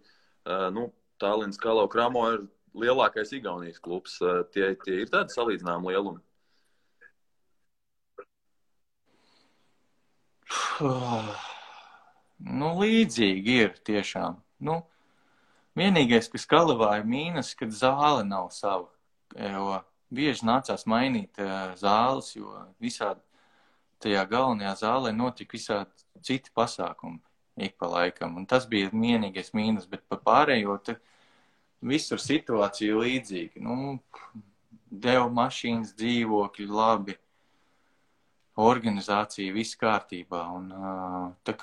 Tallinas Kalau Kramo ir lielākais Igaunijas klubs. Tie ir tādi salīdzināmi lielumi? Nu, līdzīgi ir tiešām. Nu, vienīgais, kas Kalavā ir mīnus, kad zāle nav sava. Jo bieži nācās mainīt zāles, jo visādi tajā galvenajā zālē notika visādi citi pasākumi ik pa laikam. Un tas bija vienīgais mīnus, bet pa pārējo visur situācija līdzīga. Nu, deva mašīnas, dzīvokļi, labi, organizācija, viss kārtībā. Un tā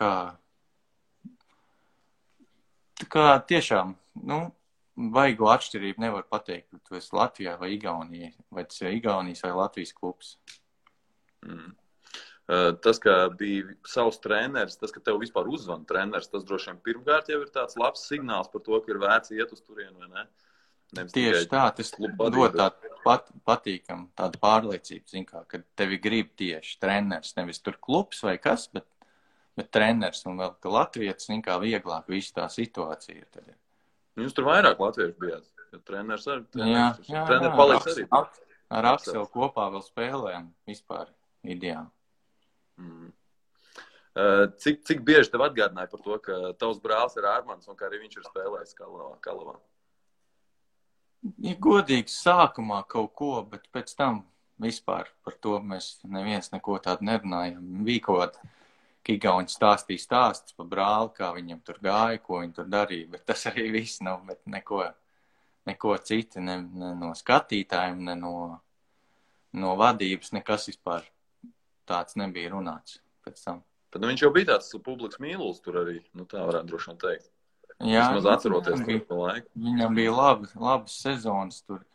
kā tiešām, nu, vaigo atšķirību nevar pateikt, ka tu esi Latvijā vai Igaunijā, vai tas ir Igaunijas vai Latvijas klubs. Tas, ka bija savs treneris, tas, ka tev vispār uzvana treneris, tas droši vien pirmkārt jau ir tāds labs signāls par to, ka ir vērts iet uz turienu, vai ne? Tieši tā, tas dod tādu patīkamu, tādu pārliecību, zin kā, kad tevi grib tieši treneris, nevis tur klubs vai kas, bet treneris un vēl, ka latvietis, zin kā, vieglāk visu tā situācija ir tad. Jūs tur vairāk latviešu bijāt, jo treneris arī. Treneris paliks arī. Ar Akselu kopā vēl spēlējam vispār ideāli. Cik bieži tev atgādināja par to, ka tavs brālis ir Ārmans un ka arī viņš ir spēlējis Kalavā? Ja godīgi sākumā kaut ko, bet pēc tam vispār par to mēs neviens neko tādu nerunājam. Bija kaut kāda Igauņi stāstīja stāsts par brāli, kā viņam tur gāja, ko viņi tur darīja, bet tas arī viss nav, bet neko citu, ne no skatītājiem, ne no vadības, nekas vispār tāds nebija runāts pēc tam. Tad viņš jau bija tāds publikas mīlulis tur arī, nu tā varētu droši vien teikt. Jā, Vismaz atceroties to laiku. Viņam bija labas sezonas tur.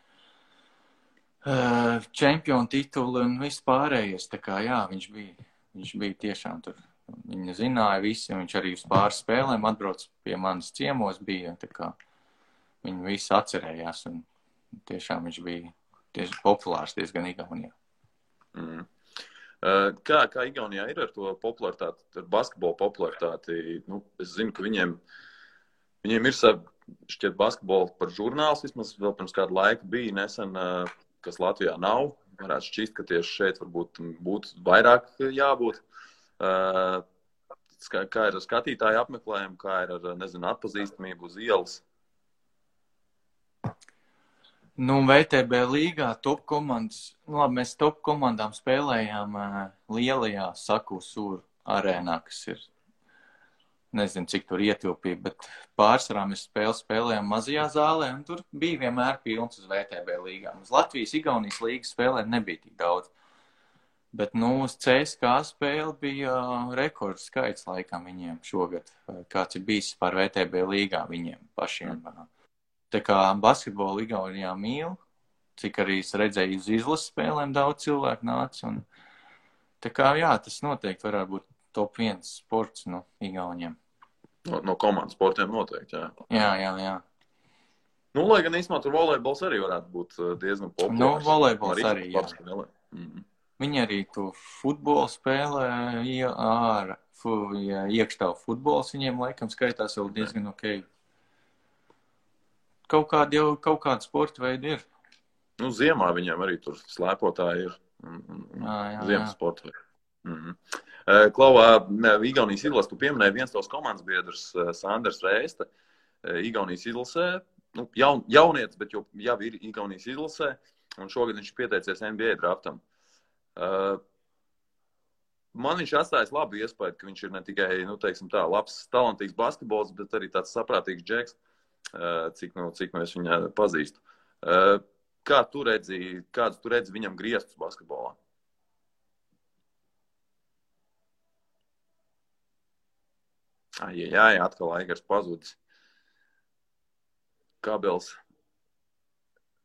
Čempionu tituli un viss pārējais. Tā kā jā, viņš bija tiešām tur. Viņa zināja visi, viņš arī uz pāris spēlēm atbrauc pie manas ciemos bija. Tā kā viņi visi atcerējās un tiešām viņš bija tieši populārs diezgan Igaunijā. Kā Igaunijā ir ar to popularitāti, ar basketbolu popularitāti? Nu, es zinu, ka viņiem ir šķiet basketbolu par žurnāls, vismaz vēl pirms kādu laiku bija nesen, kas Latvijā nav. Varētu šķist, ka tieši šeit varbūt būtu vairāk jābūt. Kā ir ar skatītāju apmeklējumu, kā ir ar, nezinu, atpazīstamību uz ielas? Nu, VTB līgā top komandas, labi, mēs top komandām spēlējām lielajā Saku-Sūru arēnā, kas ir, nezinu, cik tur ietilpīja, bet pārsvarā mēs spēlējām mazajā zālē, un tur bija vienmēr pilns uz VTB līgām. Uz Latvijas, Igaunijas līgas spēlē nebija tik daudz. Bet, nu, uz CSKA spēle bija rekords skaits laikam viņiem šogad, kāds ir bijis par VTB līgā viņiem pašiem. Tā kā basketbolu Igaunijā mīl, cik arī es redzēju uz izlases spēlēm daudz cilvēku nāca. Un, tā kā, jā, tas noteikti varētu būt top 1 sports no Igauniem. No komandas sportiem noteikti, jā. Jā. Nu, lai gan īstenībā tur volejbols arī varētu būt diezgan populārs. Nu, volejbols arī, jā. Viņi arī to futbolu spēlē, iekštāvu futbols viņiem laikam skaitās vēl diezgan ok. Kaut kāda sporta veida ir. Nu, ziemā viņiem arī tur slēpotāji ir. Ziemas sporta veida. Klau, Igaunijas izlase, tu pieminēji viens tavs komandas biedrs, Sanders Reiste. Igaunijas izlasē, nu, jaunietis, bet jau ir Igaunijas izlasē, un šogad viņš pieteicies NBA draftam. Man viņš atstājis labu iespēju, ka viņš ir ne tikai, nu, teiksim tā, labs, talantīgs basketbols, bet arī tāds saprātīgs džeks, cik mēs viņu pazīstu. Kāds tu redzi viņam griestus basketbolā? Jā, atkal Aigars pazudis. Kabels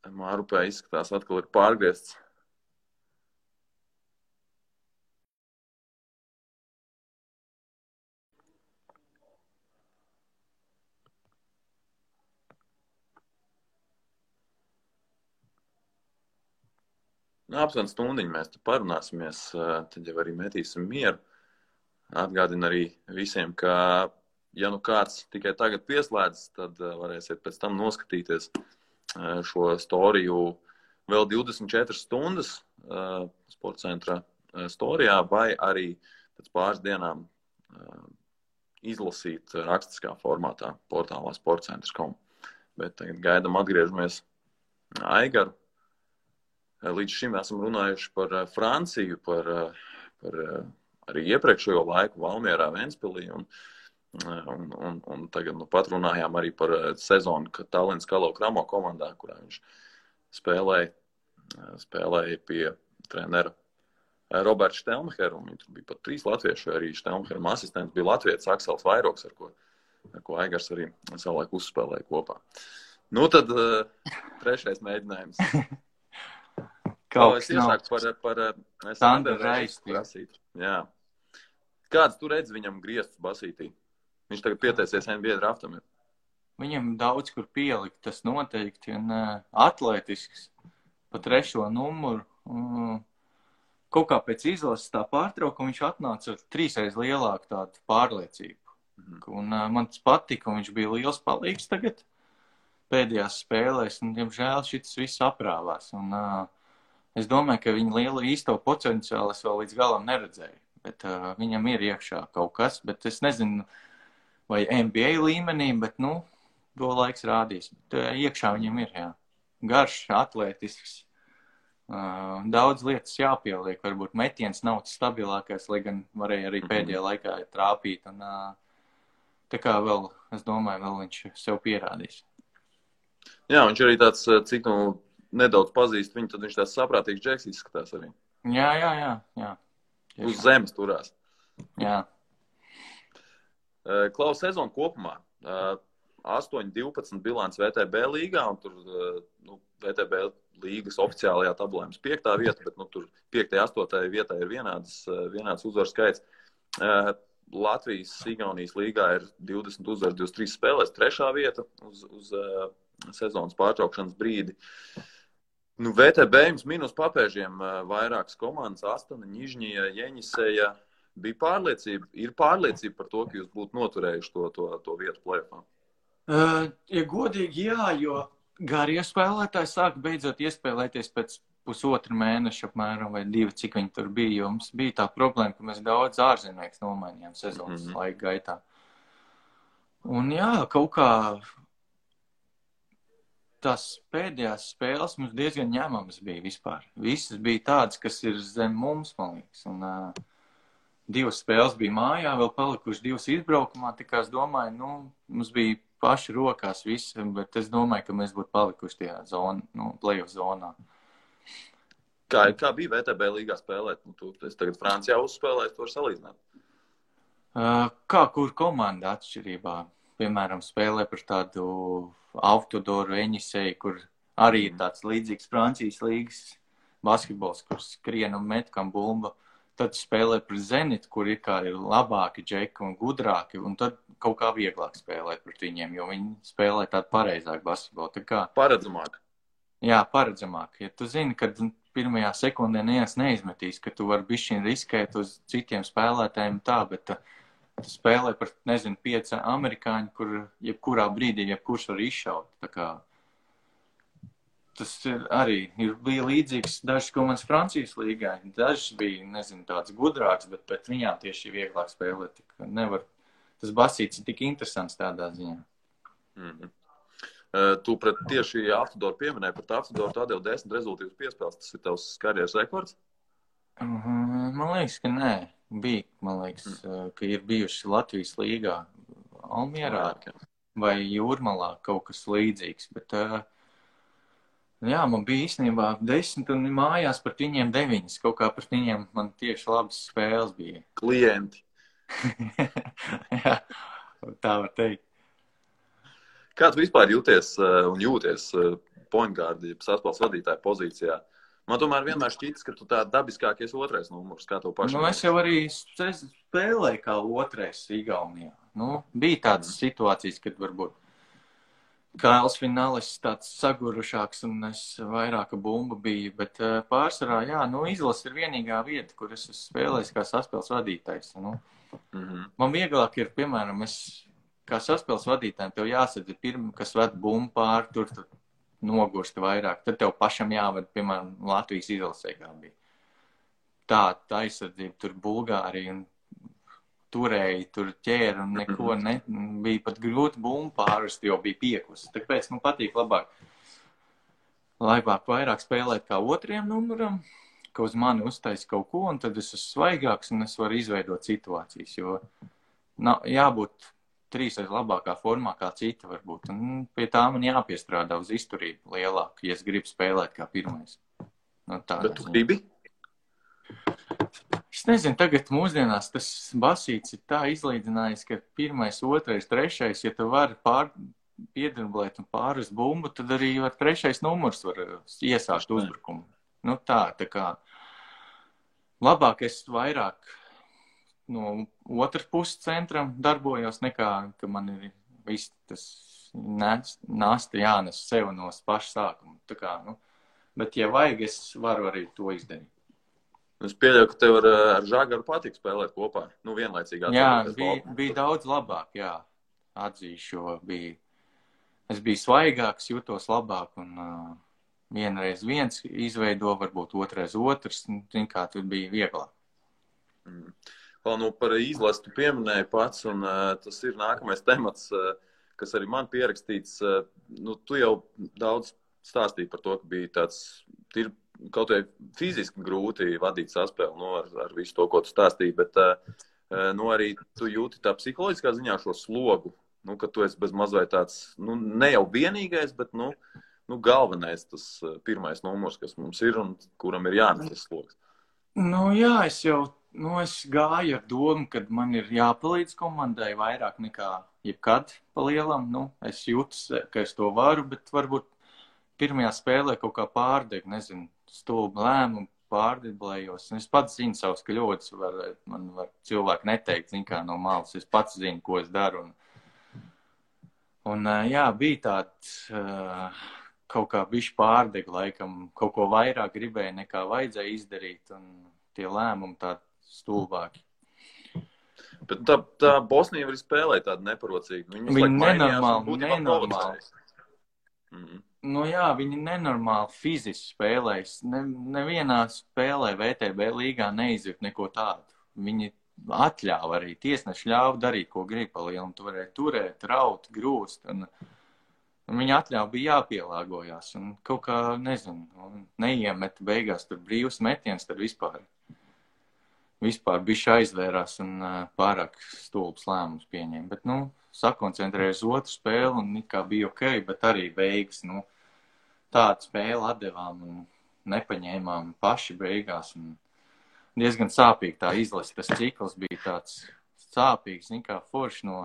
Mārupē izskatās atkal ir pārgriezts. Aptuveni stundiņu mēs te parunāsimies, tad jau arī metīsim mieru. Atgādinu arī visiem, ka, ja nu kāds tikai tagad pieslēdzas, tad varēsiet pēc tam noskatīties šo storiju vēl 24 stundas sporta centra storijā, vai arī pēc pāris dienām izlasīt rakstiskā formātā portālā sportcentrs.com. Bet tagad gaidam atgriežamies Aigaru. Līdz šim esam runājuši par Franciju, par arī iepriekšējo laiku Valmierā, Ventspilī, un tagad pat runājām arī par sezonu, kad Tallinas Kalau Kramo komandā, kurā viņš spēlēja pie trenera Roberta Štelmheru, un tur bija pat 3 latvieši, arī Štelmheram asistents bija latvietis Aksels Vairoks, ar ko Aigars arī savulaik uzspēlēja kopā. Nu tad trešais mēģinājums. Es iesāku par Sanderu Reisti prasīt. Jā. Kāds tu redzi viņam griestus basītī? Viņš tagad pieteicies NBA draftam. Viņam daudz kur pielikt, tas noteikti, un atletisks pa 3. numuru. Kaut kā pēc izlases tā pārtraukuma viņš atnāca ar 3 lielāku tādu pārliecību. Un man tas patika, un viņš bija liels palīgs tagad pēdējās spēlēs, un, diemžēl, šis viss aprāvās. Un es domāju, ka viņa lielu īsto potenciālu es vēl līdz galam neredzēju, bet viņam ir iekšā kaut kas, bet es nezinu, vai NBA līmenī, bet, nu, to laiks rādīs. Bet iekšā viņam ir, jā. Garš, atletisks, daudz lietas jāpieliek, varbūt metiens nav tas stabilākais, lai gan varēja arī pēdējā laikā trāpīt, un tā kā vēl, es domāju, vēl viņš sev pierādīs. Jā, viņš arī tāds, cik nedaudz pazīst viņu, tad viņš tāds saprātīgs džeks izskatās arī. Jā. Uz zemes turās. Jā. Klaus, sezonu kopumā. 8-12 bilants VTB līgā, un tur VTB līgas oficiālajā tabulā mums 5. vieta, bet tur 5. 8. vietā ir vienāds uzvaru skaits. Latvijas, Igaunijas līgā ir 20 uzvaru, 23 spēlēs, 3. vieta uz sezonas pārtraukšanas brīdi. VTB jums minus papēžiem vairākas komandas, Astana, Ņižņija, Jeņiseja. Ir pārliecība par to, ka jūs būtu noturējuši to vietu play-offā? Ja godīgi, jā, jo garie spēlētāji sāka beidzot iespēlēties pēc pusotru mēnešu apmēram vai 2, cik viņi tur bija, jo mums bija tā problēma, ka mēs daudz ārzemnieks nomainījām sezonas laika gaitā. Un jā, kaut kā tās pēdējās spēles mums diezgan ņemamas bija vispār. Visas bija tādas, kas ir zem mums, man liekas. Un 2 spēles bija mājā, vēl palikuši 2 izbraukumā, tā kā es domāju, mums bija paši rokās visi, bet es domāju, ka mēs būtu palikuši tajā play-off zonā. Kā bija VTB līgā spēlēt? Es tagad Francijā uzspēlēju, to var salīdzināt. Kā kur komanda atšķirībā? Piemēram, spēlē par tādu Autodoru Eņiseju, kur arī ir tāds līdzīgs Francijas līgas basketbols, kur skrien un met kam bumba. Tad spēlē par Zenitu, kur ir labāki džeki un gudrāki, un tad kaut kā vieglāk spēlēt pret viņiem, jo viņi spēlē tādu pareizāku basketbolu. Paredzamāk. Jā, paredzamāk. Ja tu zini, kad pirmajā sekundē neviens neizmetīs, ka tu vari bišķiņ riskēt uz citiem spēlētājiem tā, bet tu spēlē par, 5 amerikāņu, kur jebkurā brīdī jebkurš var izšaut. Tā kā tas bija līdzīgs dažas komandas Francijas līgā. Dažas bija, tāds gudrāks, bet pret viņām tieši vieglāk spēlēt. Tas basīts ir tik interesants tādā ziņā. Tu pret tieši Autodoru pieminēji, pret Autodoru tu atdevi 10 rezultīvas piespēles. Tas ir tavs karjeras rekords? Man liekas, ka nē. Bija, man liekas, ka ir bijuši Latvijas līgā Almierā vai Jūrmalā kaut kas līdzīgs. Bet, jā, man bija īstenībā 10 un mājās pret viņiem 9. Kaut kā pret viņiem man tieši labas spēles bija. Klienti. Jā, tā var teikt. Kā tu vispār jūties point guard, saspēles vadītāja pozīcijā? Man tomēr vienmēr šķitas, ka tu tā dabiskākies 2. numurs, kā tev pašam. Es jau arī spēlēju kā 2. Igaunijā. Bija tādas situācijas, kad varbūt Kails Finālis tāds sagurušāks un es vairāka bumba biju, bet pārsvarā, jā, izlase ir vienīgā vieta, kur es esmu spēlējis kā saspēles vadītājs. Man vieglāk ir, piemēram, kā saspēles vadītājiem, tev jāsadz pirmā, kas ved bumbu pār, tur nogurst vairāk. Tad tev pašam jāved, piemēram, Latvijas izlasē kā bija. Tā aizsardzība, tur Bulgārija un turēja, tur ķēra un neko bija pat grūti bumbu pārvest, jo bija piekus. Tāpēc man patīk labāk vairāk spēlēt kā 2. numuram, ka uz mani uztais kaut ko, un tad es esmu svaigāks un es varu izveidot situācijas, jo jābūt 3 labākā formā kā cita varbūt. Un pie tā man jāpiestrādā uz izturību lielāku, ja es gribu spēlēt kā 1. Bet tu gribi? Es nezinu, tagad mūsdienās tas basīts ir tā izlīdzinājis, ka 1., 2., 3., ja tu vari piedrblēt un pārvest bumbu, tad arī 3. numurs var iesākt uzbrukumu. Tā kā labāk es vairāk no otras puses centram darbojos, nekā, ka man ir viss tas nasta jānes sev no paša sākuma. Bet, ja vajag, es varu arī to izdarīt. Es pieļauju, ka tev ar Žagaru patīk spēlēt kopā. Vienlaicīgi. Jā, bija daudz labāk, jā. Atzīšu, jo es biju svaigāks, jūtos labāk un vienreiz viens izveido, varbūt 2. otrs, kā tur bija vieglāk. Par izlasi tu pieminēji pats, un tas ir nākamais temats, kas arī man pierakstīts. Tu jau daudz stāstīji par to, ka bija tāds kaut vai fiziski grūti vadīt saspēli ar visu to, ko tu stāstīji, bet arī tu jūti tā psiholoģiskā ziņā šo slogu, ka tu esi bez mazliet tāds, ne jau vienīgais, bet galvenais tas 1. numurs, kas mums ir un kuram ir jānes tas slogs. Jā, es jau Es gāju ar domu, ka man ir jāpalīdz komandai vairāk nekā jebkad pa lielam. Es jūtu, ka es to varu, bet varbūt pirmajā spēlē kaut kā pārdegu, nezinu, stulbu lēmumu pārdeblējos. Es pats zinu savus kļūdas, man var cilvēki neteikt, zin kā no malas, es pats zinu, ko es daru. Jā, bija tāds kaut kā bišķi pārdegu laikam, kaut ko vairāk gribēja nekā vajadzēja izdarīt, un tie lēmumi tādi stulbāki. Bet tā Bosnija var spēlēt tādu neparocīgu. Viņi nenormāli. Jā, viņi nenormāli fiziski spēlēs. Nevienā spēlē VTB līgā neizjūt neko tādu. Viņi atļāva arī, tiesneši ļāva darīt, ko grib pa lielam. Tu varēji turēt, raut, grūst. Un viņi atļāva bija jāpielāgojās. Un kaut kā, nezinu, neiemet beigās tur brīvs metiens, tad vispār bišķi aizvērās un pārāk stulbs lēmums pieņēma. Bet, sakoncentrēja uz otru spēli un kā bija ok, bet arī beigas, tādu spēli atdevām un nepaņēmām paši beigās. Un diezgan sāpīgi tā izlase. Tas cikls bija tāds sāpīgs, kā forši no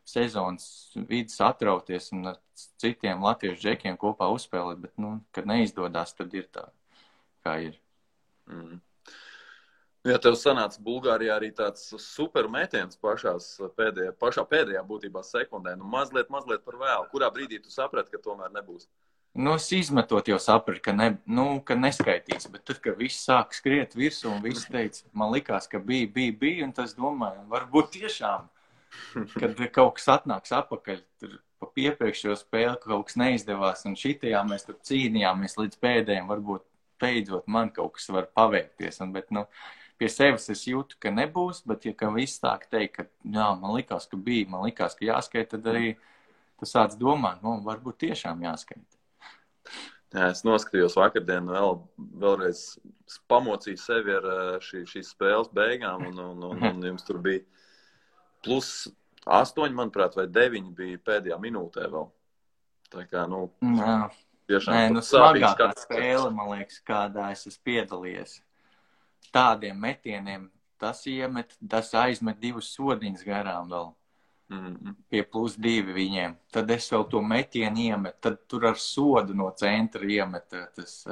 sezonas vidas atrauties un ar citiem latviešu džekiem kopā uzspēlēt, bet, kad neizdodās, tad ir tā, kā ir. Ja tev sanāca Bulgārijā arī tāds super metiens pašā pēdējā būtībā sekundē, mazliet par vēlu. Kurā brīdī tu saprati, ka tomēr nebūs? Es izmetot jau sapratu, ka neskaitīs, bet tad, kad viss sāk skriet virsū un viss teica, man likās, ka bija, un tas domāju, varbūt tiešām, kad kaut kas atnāks apakaļ, tur pa iepriekšējo spēli, kaut kas neizdevās, un šitajā mēs tur cīnījāmies līdz pēdējiem, varbūt beidzot man kaut kas var paveikties, bet, pie sevis es jūtu, ka nebūs, bet ja viss sāk teikt, ka jā, man likās, ka bija, man likās, ka jāskait, tad arī tu sāc domāt, varbūt tiešām jāskait. Jā, es noskatījos vakardien vēlreiz pamocīju sevi ar šīs spēles beigām, un jums tur bija +8, manuprāt, vai 9 bija pēdējā minūtē vēl. Tā kā, tiešām smagākā spēle, man liekas, kādā es esmu piedalījies. Tādiem metieniem tas aizmet 2 sodiņas garām vēl. Pie +2 viņiem. Tad es vēl to metienu iemetu, tad tur ar sodu no centra iemeta tas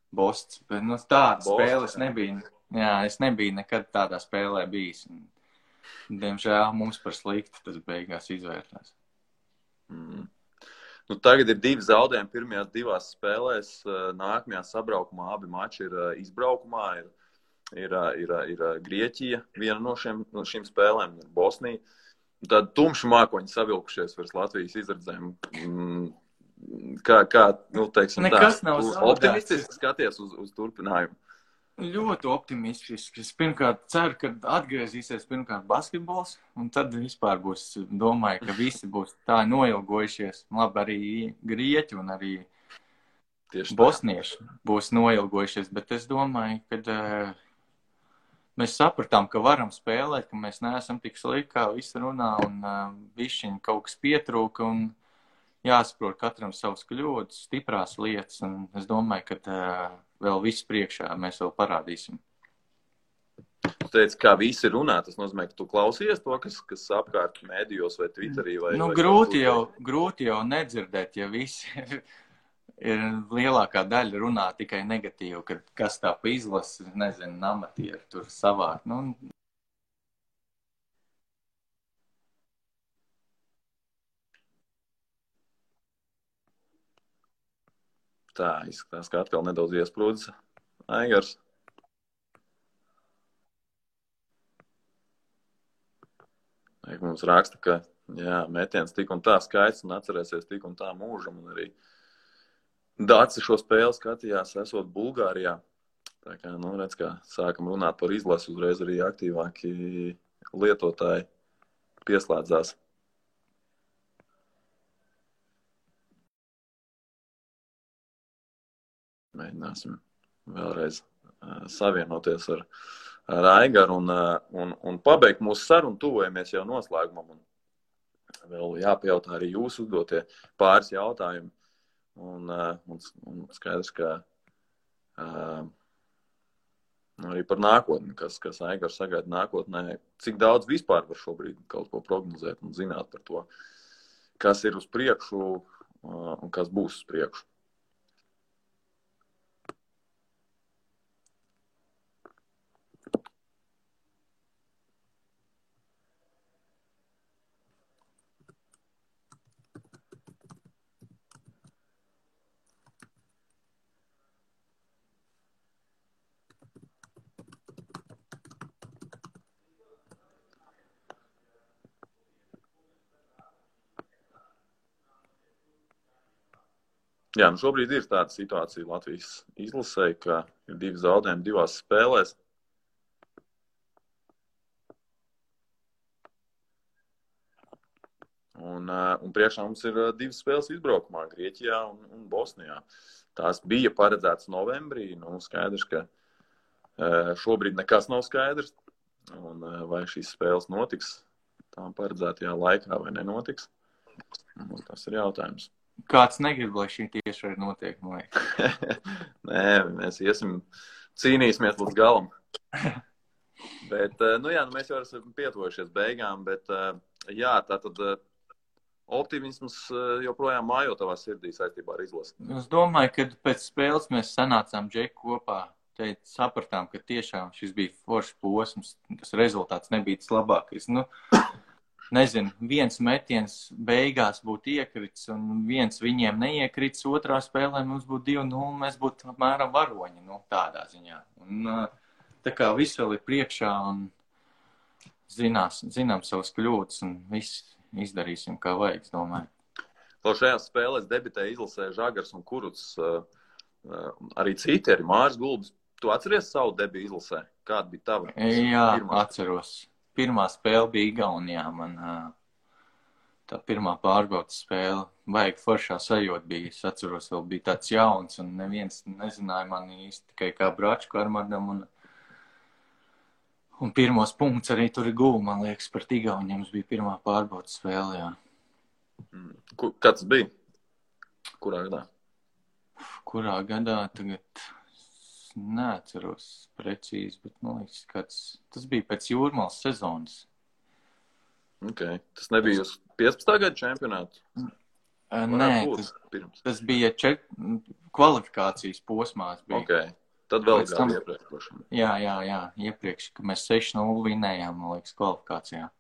Bosts. Bet tāda spēle es nebiju. Jā, es nebiju nekad tādā spēlē bijis. Diemžēl mums par slikti tas beigās izvērtās. Tagad ir 2 zaudējumi pirmajās 2 spēlēs. Nākamajā sabraukumā abi mači ir izbraukumā. Ir Grieķija, viena no šīm spēlēm, ir Bosnija. Tad tumši mākoņi savilkušies virs Latvijas izredzēm. Kā teiksim tā, optimistiski skaties uz turpinājumu? Ļoti optimistiski. Es pirmkārt ceru, ka atgriezīsies basketbols, un tad vispār domāju, ka visi būs tā noilgojušies. Labi, arī grieķi un arī bosnieši būs noilgojušies, bet es domāju, ka mēs sapratām, ka varam spēlēt, ka mēs neesam tik slikti, kā visi runā, un bišķiņ kaut kas pietrūka, un jāsaprot katram savas kļūdas, stiprās lietas, un es domāju, ka vēl viss priekšā mēs vēl parādīsim. Tu teici, kā visi runā, tas nozīmē, ka tu klausies to, kas apkārt mēdījos vai Twitterī? Grūti jau nedzirdēt, ja visi ir lielākā daļa runā tikai negatīvi, kad kas tā pa izlasi, nezinu, amatieri tur savāk. Tā izskatās, ka atkal nedaudz iesprūdis Aigars. Mums raksta, ka metiens tik un tā skaists un atcerēsies tik un tā mūžam, un arī Dāci šo spēli skatījās, esot Bulgārijā. Tā kā, redz, kā sākam runāt par izlasi, uzreiz arī aktīvāki lietotāji pieslēdzās. Mēģināsim vēlreiz savienoties ar Aigaru un pabeigt mūsu sarunu, tuvojamies jau noslēgumam. Un vēl jāpajautā arī jūsu uzdotie pāris jautājumi. Un skaidrs, ka arī par nākotni, kas Aigars sagaida nākotnē. Cik daudz vispār var šobrīd kaut ko prognozēt un zināt par to, kas ir uz priekšu un kas būs uz priekšu? Jā, nu šobrīd ir tāda situācija Latvijas izlasē, ka ir 2 zaudējumi 2 spēlēs. Un priekšā mums ir 2 spēles izbraukumā Grieķijā un Bosnijā. Tās bija paredzētas novembrī. Nu, skaidrs, ka šobrīd nekas nav skaidrs. Un vai šīs spēles notiks tām paredzētajā laikā vai nenotiks? Un tas ir jautājums. Kāds negrib, lai šī tieši arī notiek, man liekas. Nē, mēs cīnīsimies līdz galam. Bet, mēs jau esam pietuvojušies beigām, bet, tātad optimisms joprojām mājo tavā sirdī saistībā ar izlasi. Es domāju, ka pēc spēles mēs sanācām Džeku kopā, sapratām, ka tiešām šis bija foršs posms, tas rezultāts nebija tas labākais. Nezinu, viens metiens beigās būtu iekrits un viens viņiem neiekrits, otrā spēlē mums būtu 2-0, mēs būtu apmēram varoņi, tādā ziņā. Un tā kā viss vēl ir priekšā un zinām savas kļūdas un viss izdarīsim, kā vajag, es domāju. Šajās spēlēs debitēja izlasē Žagars un Kurucs, arī citi, arī Māris Gulbis. Tu atceries savu debiju izlasē? Kāda bija tava? Jā, atceros. Pirmā spēle bija Igaunijā, man tā pirmā pārbaudas spēle, vajag foršā sajūta bija. Es atceros, vēl bija tāds jauns un neviens nezināja mani īsti tikai kā Bračku Armardam un pirmos punkts arī tur ir guva, man liekas, par Igauniem. Mums bija pirmā pārbaudas spēle, jā. Kāds bija? Kurā gadā? Kurā gadā tagad... Neatceros precīzi, bet, man liekas, tas bija pēc Jūrmālas sezonas. Okay. Tas nebija uz 15. Gada čempionātu? Nē, tas bija kvalifikācijas posmās. Bija. Okay. Tad vēl gadu iepriekš. Jā, iepriekš, ka mēs 6-0 vinējām, man liekas, kvalifikācijā.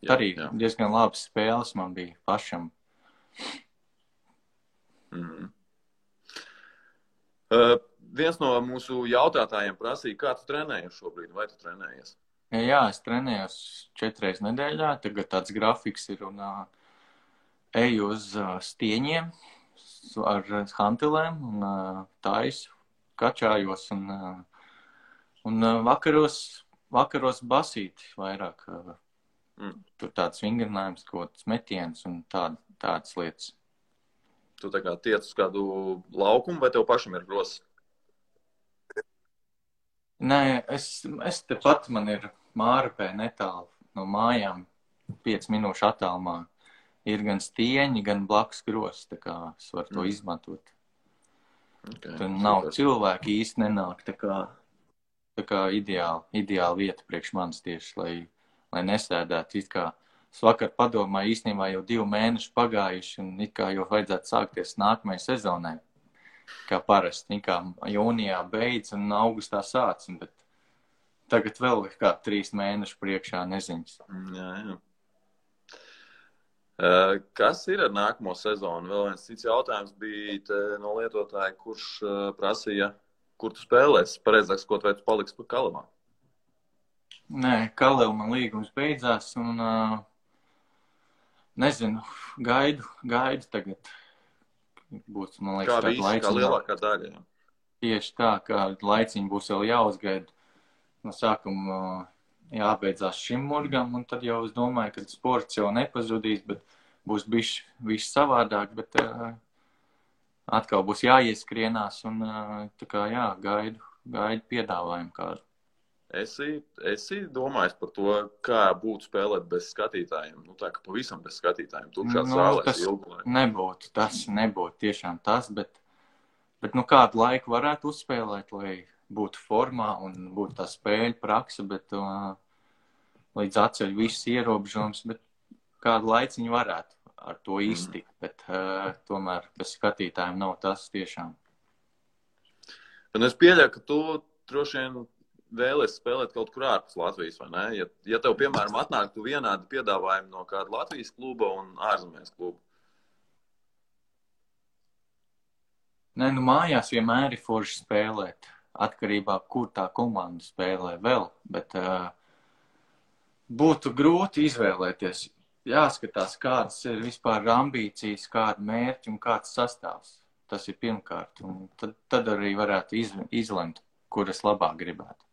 Jā, arī diezgan labas spēles man bija pašam. Viens no mūsu jautātājiem prasīja, kā tu trenējies šobrīd, vai tu trenējies? Jā, es trenējos 4 reizes nedēļā, tagad tāds grafiks ir un eju uz stieņiem ar hantelēm un taisu, kačājos un vakaros basīti vairāk. Tur tāds vingrinājums, kaut kāds metiens un tādas lietas. Tu tā kā tiec uz kādu laukumu vai tev pašam ir rosas? Nē, es tepat man ir Mārupē netālu no mājām, 5 minūšu attālumā. Ir gan stieņi, gan blakus grozs, tā kā es varu to izmantot. Okay, tur nav cilvēki īsti nenāk, tā kā ideāla vieta priekš manis tieši, lai nesēdētu. It kā es vakar padomāju, īstenībā jau 2 mēneši pagājuši un it kā jau vajadzētu sākties nākamajai sezonai. Kā parasti, kā jūnijā beidz un augustā sāc, bet tagad vēl ir kā 3 mēneši priekšā neziņas. Jā. Kas ir ar nākamo sezonu? Vēl viens cits jautājums bija no lietotāja, kurš prasīja, kur tu spēlēsi. Pareizāks, ko vai tu paliksi pa Kalevā? Nē, Kaleva man līgums beidzās un nezinu, gaidu tagad. Būs, man liekas, kā visi, kā lielākā daļa. Jā. Tieši tā, ka laiciņi būs vēl jāuzgaida. No sākuma jābeidzās šim murgam, un tad jau es domāju, ka sports jau nepazudīs, bet būs bišķi savādāk, bet atkal būs jāieskrienās, un tā kā gaidu piedāvājumu kādu. Esi domājis par to, kā būtu spēlēt bez skatītājiem? Tā kā pavisam bez skatītājiem. Tukšās zālēs ilgu laiku. Tas nebūtu tiešām tas, bet kādu laiku varētu uzspēlēt, lai būtu formā un būtu tā spēļu praksa, bet līdz atceļ visas ierobežojums, bet kādu laiciņu varētu ar to iztikt, bet tomēr bez skatītājiem nav tas tiešām. Un es pieļauju, ka tu droši vien vēlies spēlēt kaut kur ārpus Latvijas, vai ne? Ja tev, piemēram, atnāktu vienādi piedāvājumi no kāda Latvijas kluba un ārzemēs kluba. Nē, nu mājās vienmēr ir forši spēlēt, atkarībā, kur tā komanda spēlē vēl, bet būtu grūti izvēlēties. Jāskatās, kādas ir vispār ambīcijas, kāda mērķi un kāds sastāvs. Tas ir pirmkārt, un tad arī varētu izlemt, kur es labāk gribētu.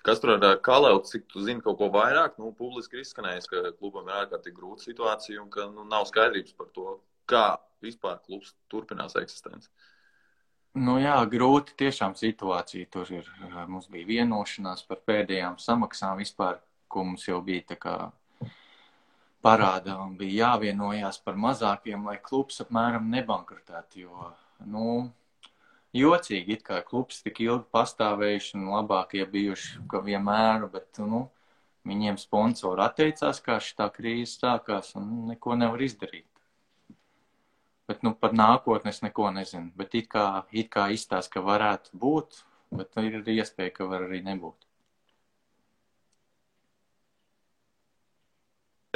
Kas tur ar Kalevtu, cik tu zini kaut ko vairāk? Nu, publiski ir izskanējis, ka klubam ir ārkārtīgi grūta situācija un ka nav skaidrības par to, kā vispār klubs turpinās eksistenci. Nu jā, grūti tiešām situācija. Tur ir, mums bija vienošanās par pēdējām samaksām vispār, ko mums jau bija tā kā parāda un bija jāvienojās par mazākiem, lai klubs apmēram nebankrutētu, jo, nu, jocīgi, it kā klubs tik ilgi pastāvējuši un labākie bijuši, ka vienmēr, bet, nu, viņiem sponsori atteicās, kā šitā krīze sākās un neko nevar izdarīt. Bet, nu, par nākotni es neko nezinu, bet it kā izstāst, ka varētu būt, bet ir iespēja, ka var arī nebūt.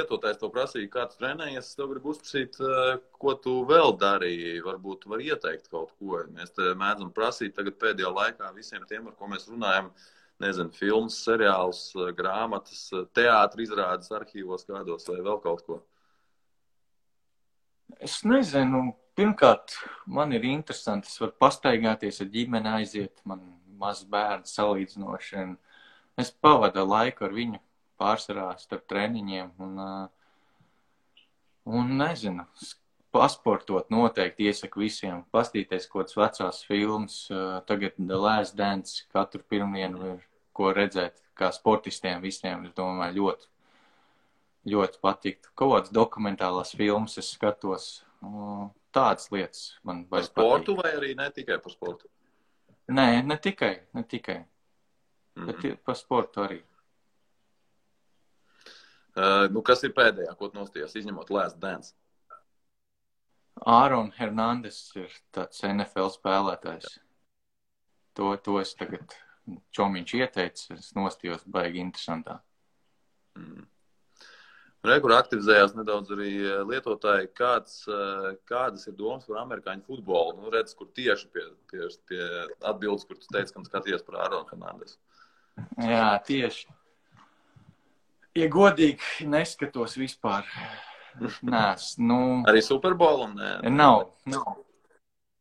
Lietotājs to prasīja, kā tu trenējies, es tev gribu uzprasīt, ko tu vēl darīji, varbūt tu vari ieteikt kaut ko. Mēs te mēdzam prasīt tagad pēdējā laikā visiem tiem, ar ko mēs runājam, nezinu, filmas, seriāls, grāmatas, teātri izrādes arhīvos kādos vai vēl kaut ko. Es nezinu, pirmkārt, man ir interesanti, es varu pastaigāties ar ģimeni aiziet, man mazs bērns salīdzinoši, un es pavadu laiku ar viņu. Pārsvarā starp treniņiem un nezinu, pasportot noteikti iesaku visiem, pastīties kaut kādas vecās filmas, tagad The Last Dance katru pirmdienu ir ko redzēt, kā sportistiem visiem, es domāju, ļoti, ļoti patiktu. Kaut kādas dokumentālās filmas es skatos, tādas lietas man vajag par sportu patīk. Vai arī ne tikai par sportu? Nē, ne tikai, bet par sportu arī. Nu, kas ir pēdējā, ko tu nostījās, izņemot Last Dance? Aaron Hernandez ir tāds NFL spēlētājs. To es tagad čomiņš ieteicu, es nostījos baigi interesantā. Rekur aktivizējās nedaudz arī lietotāji, kādas ir domas par amerikāņu futbolu? Nu, redz, kur tieši pie atbildes, kur tu teici, ka skaties par Aaron Hernandez. Jā, tieši. Ja godīgi neskatos vispār, Arī Superbolam? Nav.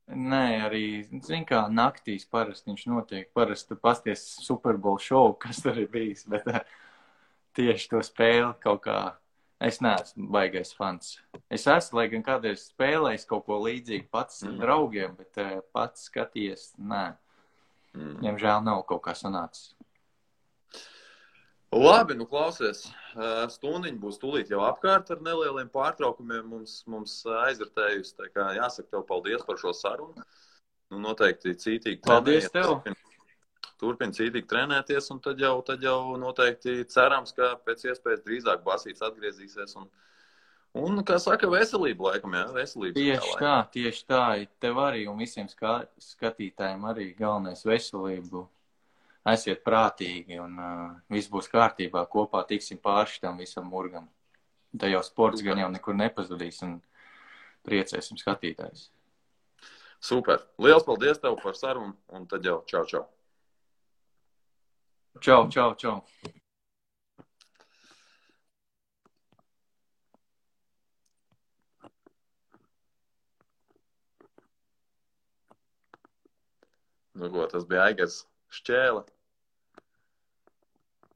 Nē, arī, zin kā, naktīs parasti viņš notiek. Parasti pasties Superbowl šovu, kas tur ir bijis, bet tieši to spēli kaut kā, es neesmu baigais fans. Es esmu, lai gan kādreiz spēlējis kaut ko līdzīgu pats ar draugiem, bet pats skaties, nē. Diemžēl nav kaut kā sanācis. Labi, nu klausies, stundiņa būs tūlīt jau apkārt ar nelieliem pārtraukumiem mums aizvērtējusi, tā kā jāsaka tev paldies par šo sarunu. Nu, noteikti cītīgi paldies tev. Turpin cītīgi trenēties un tad jau noteikti cerams, ka pēc iespējas drīzāk Basīts atgriezīsies un kā saka, veselība laikam, jā, veselība. Tieši tā, tev arī un visiem skatītājiem arī galvenais veselību. Esiet prātīgi un viss būs kārtībā, kopā tiksim pāri šitam visam murgam. Tā jau sports gan jau nekur nepazudīs un priecēsim skatītājus. Super. Liels paldies tev par sarunu un tad jau čau. Čau. Nu ko, tas bija Aigars Šķēle.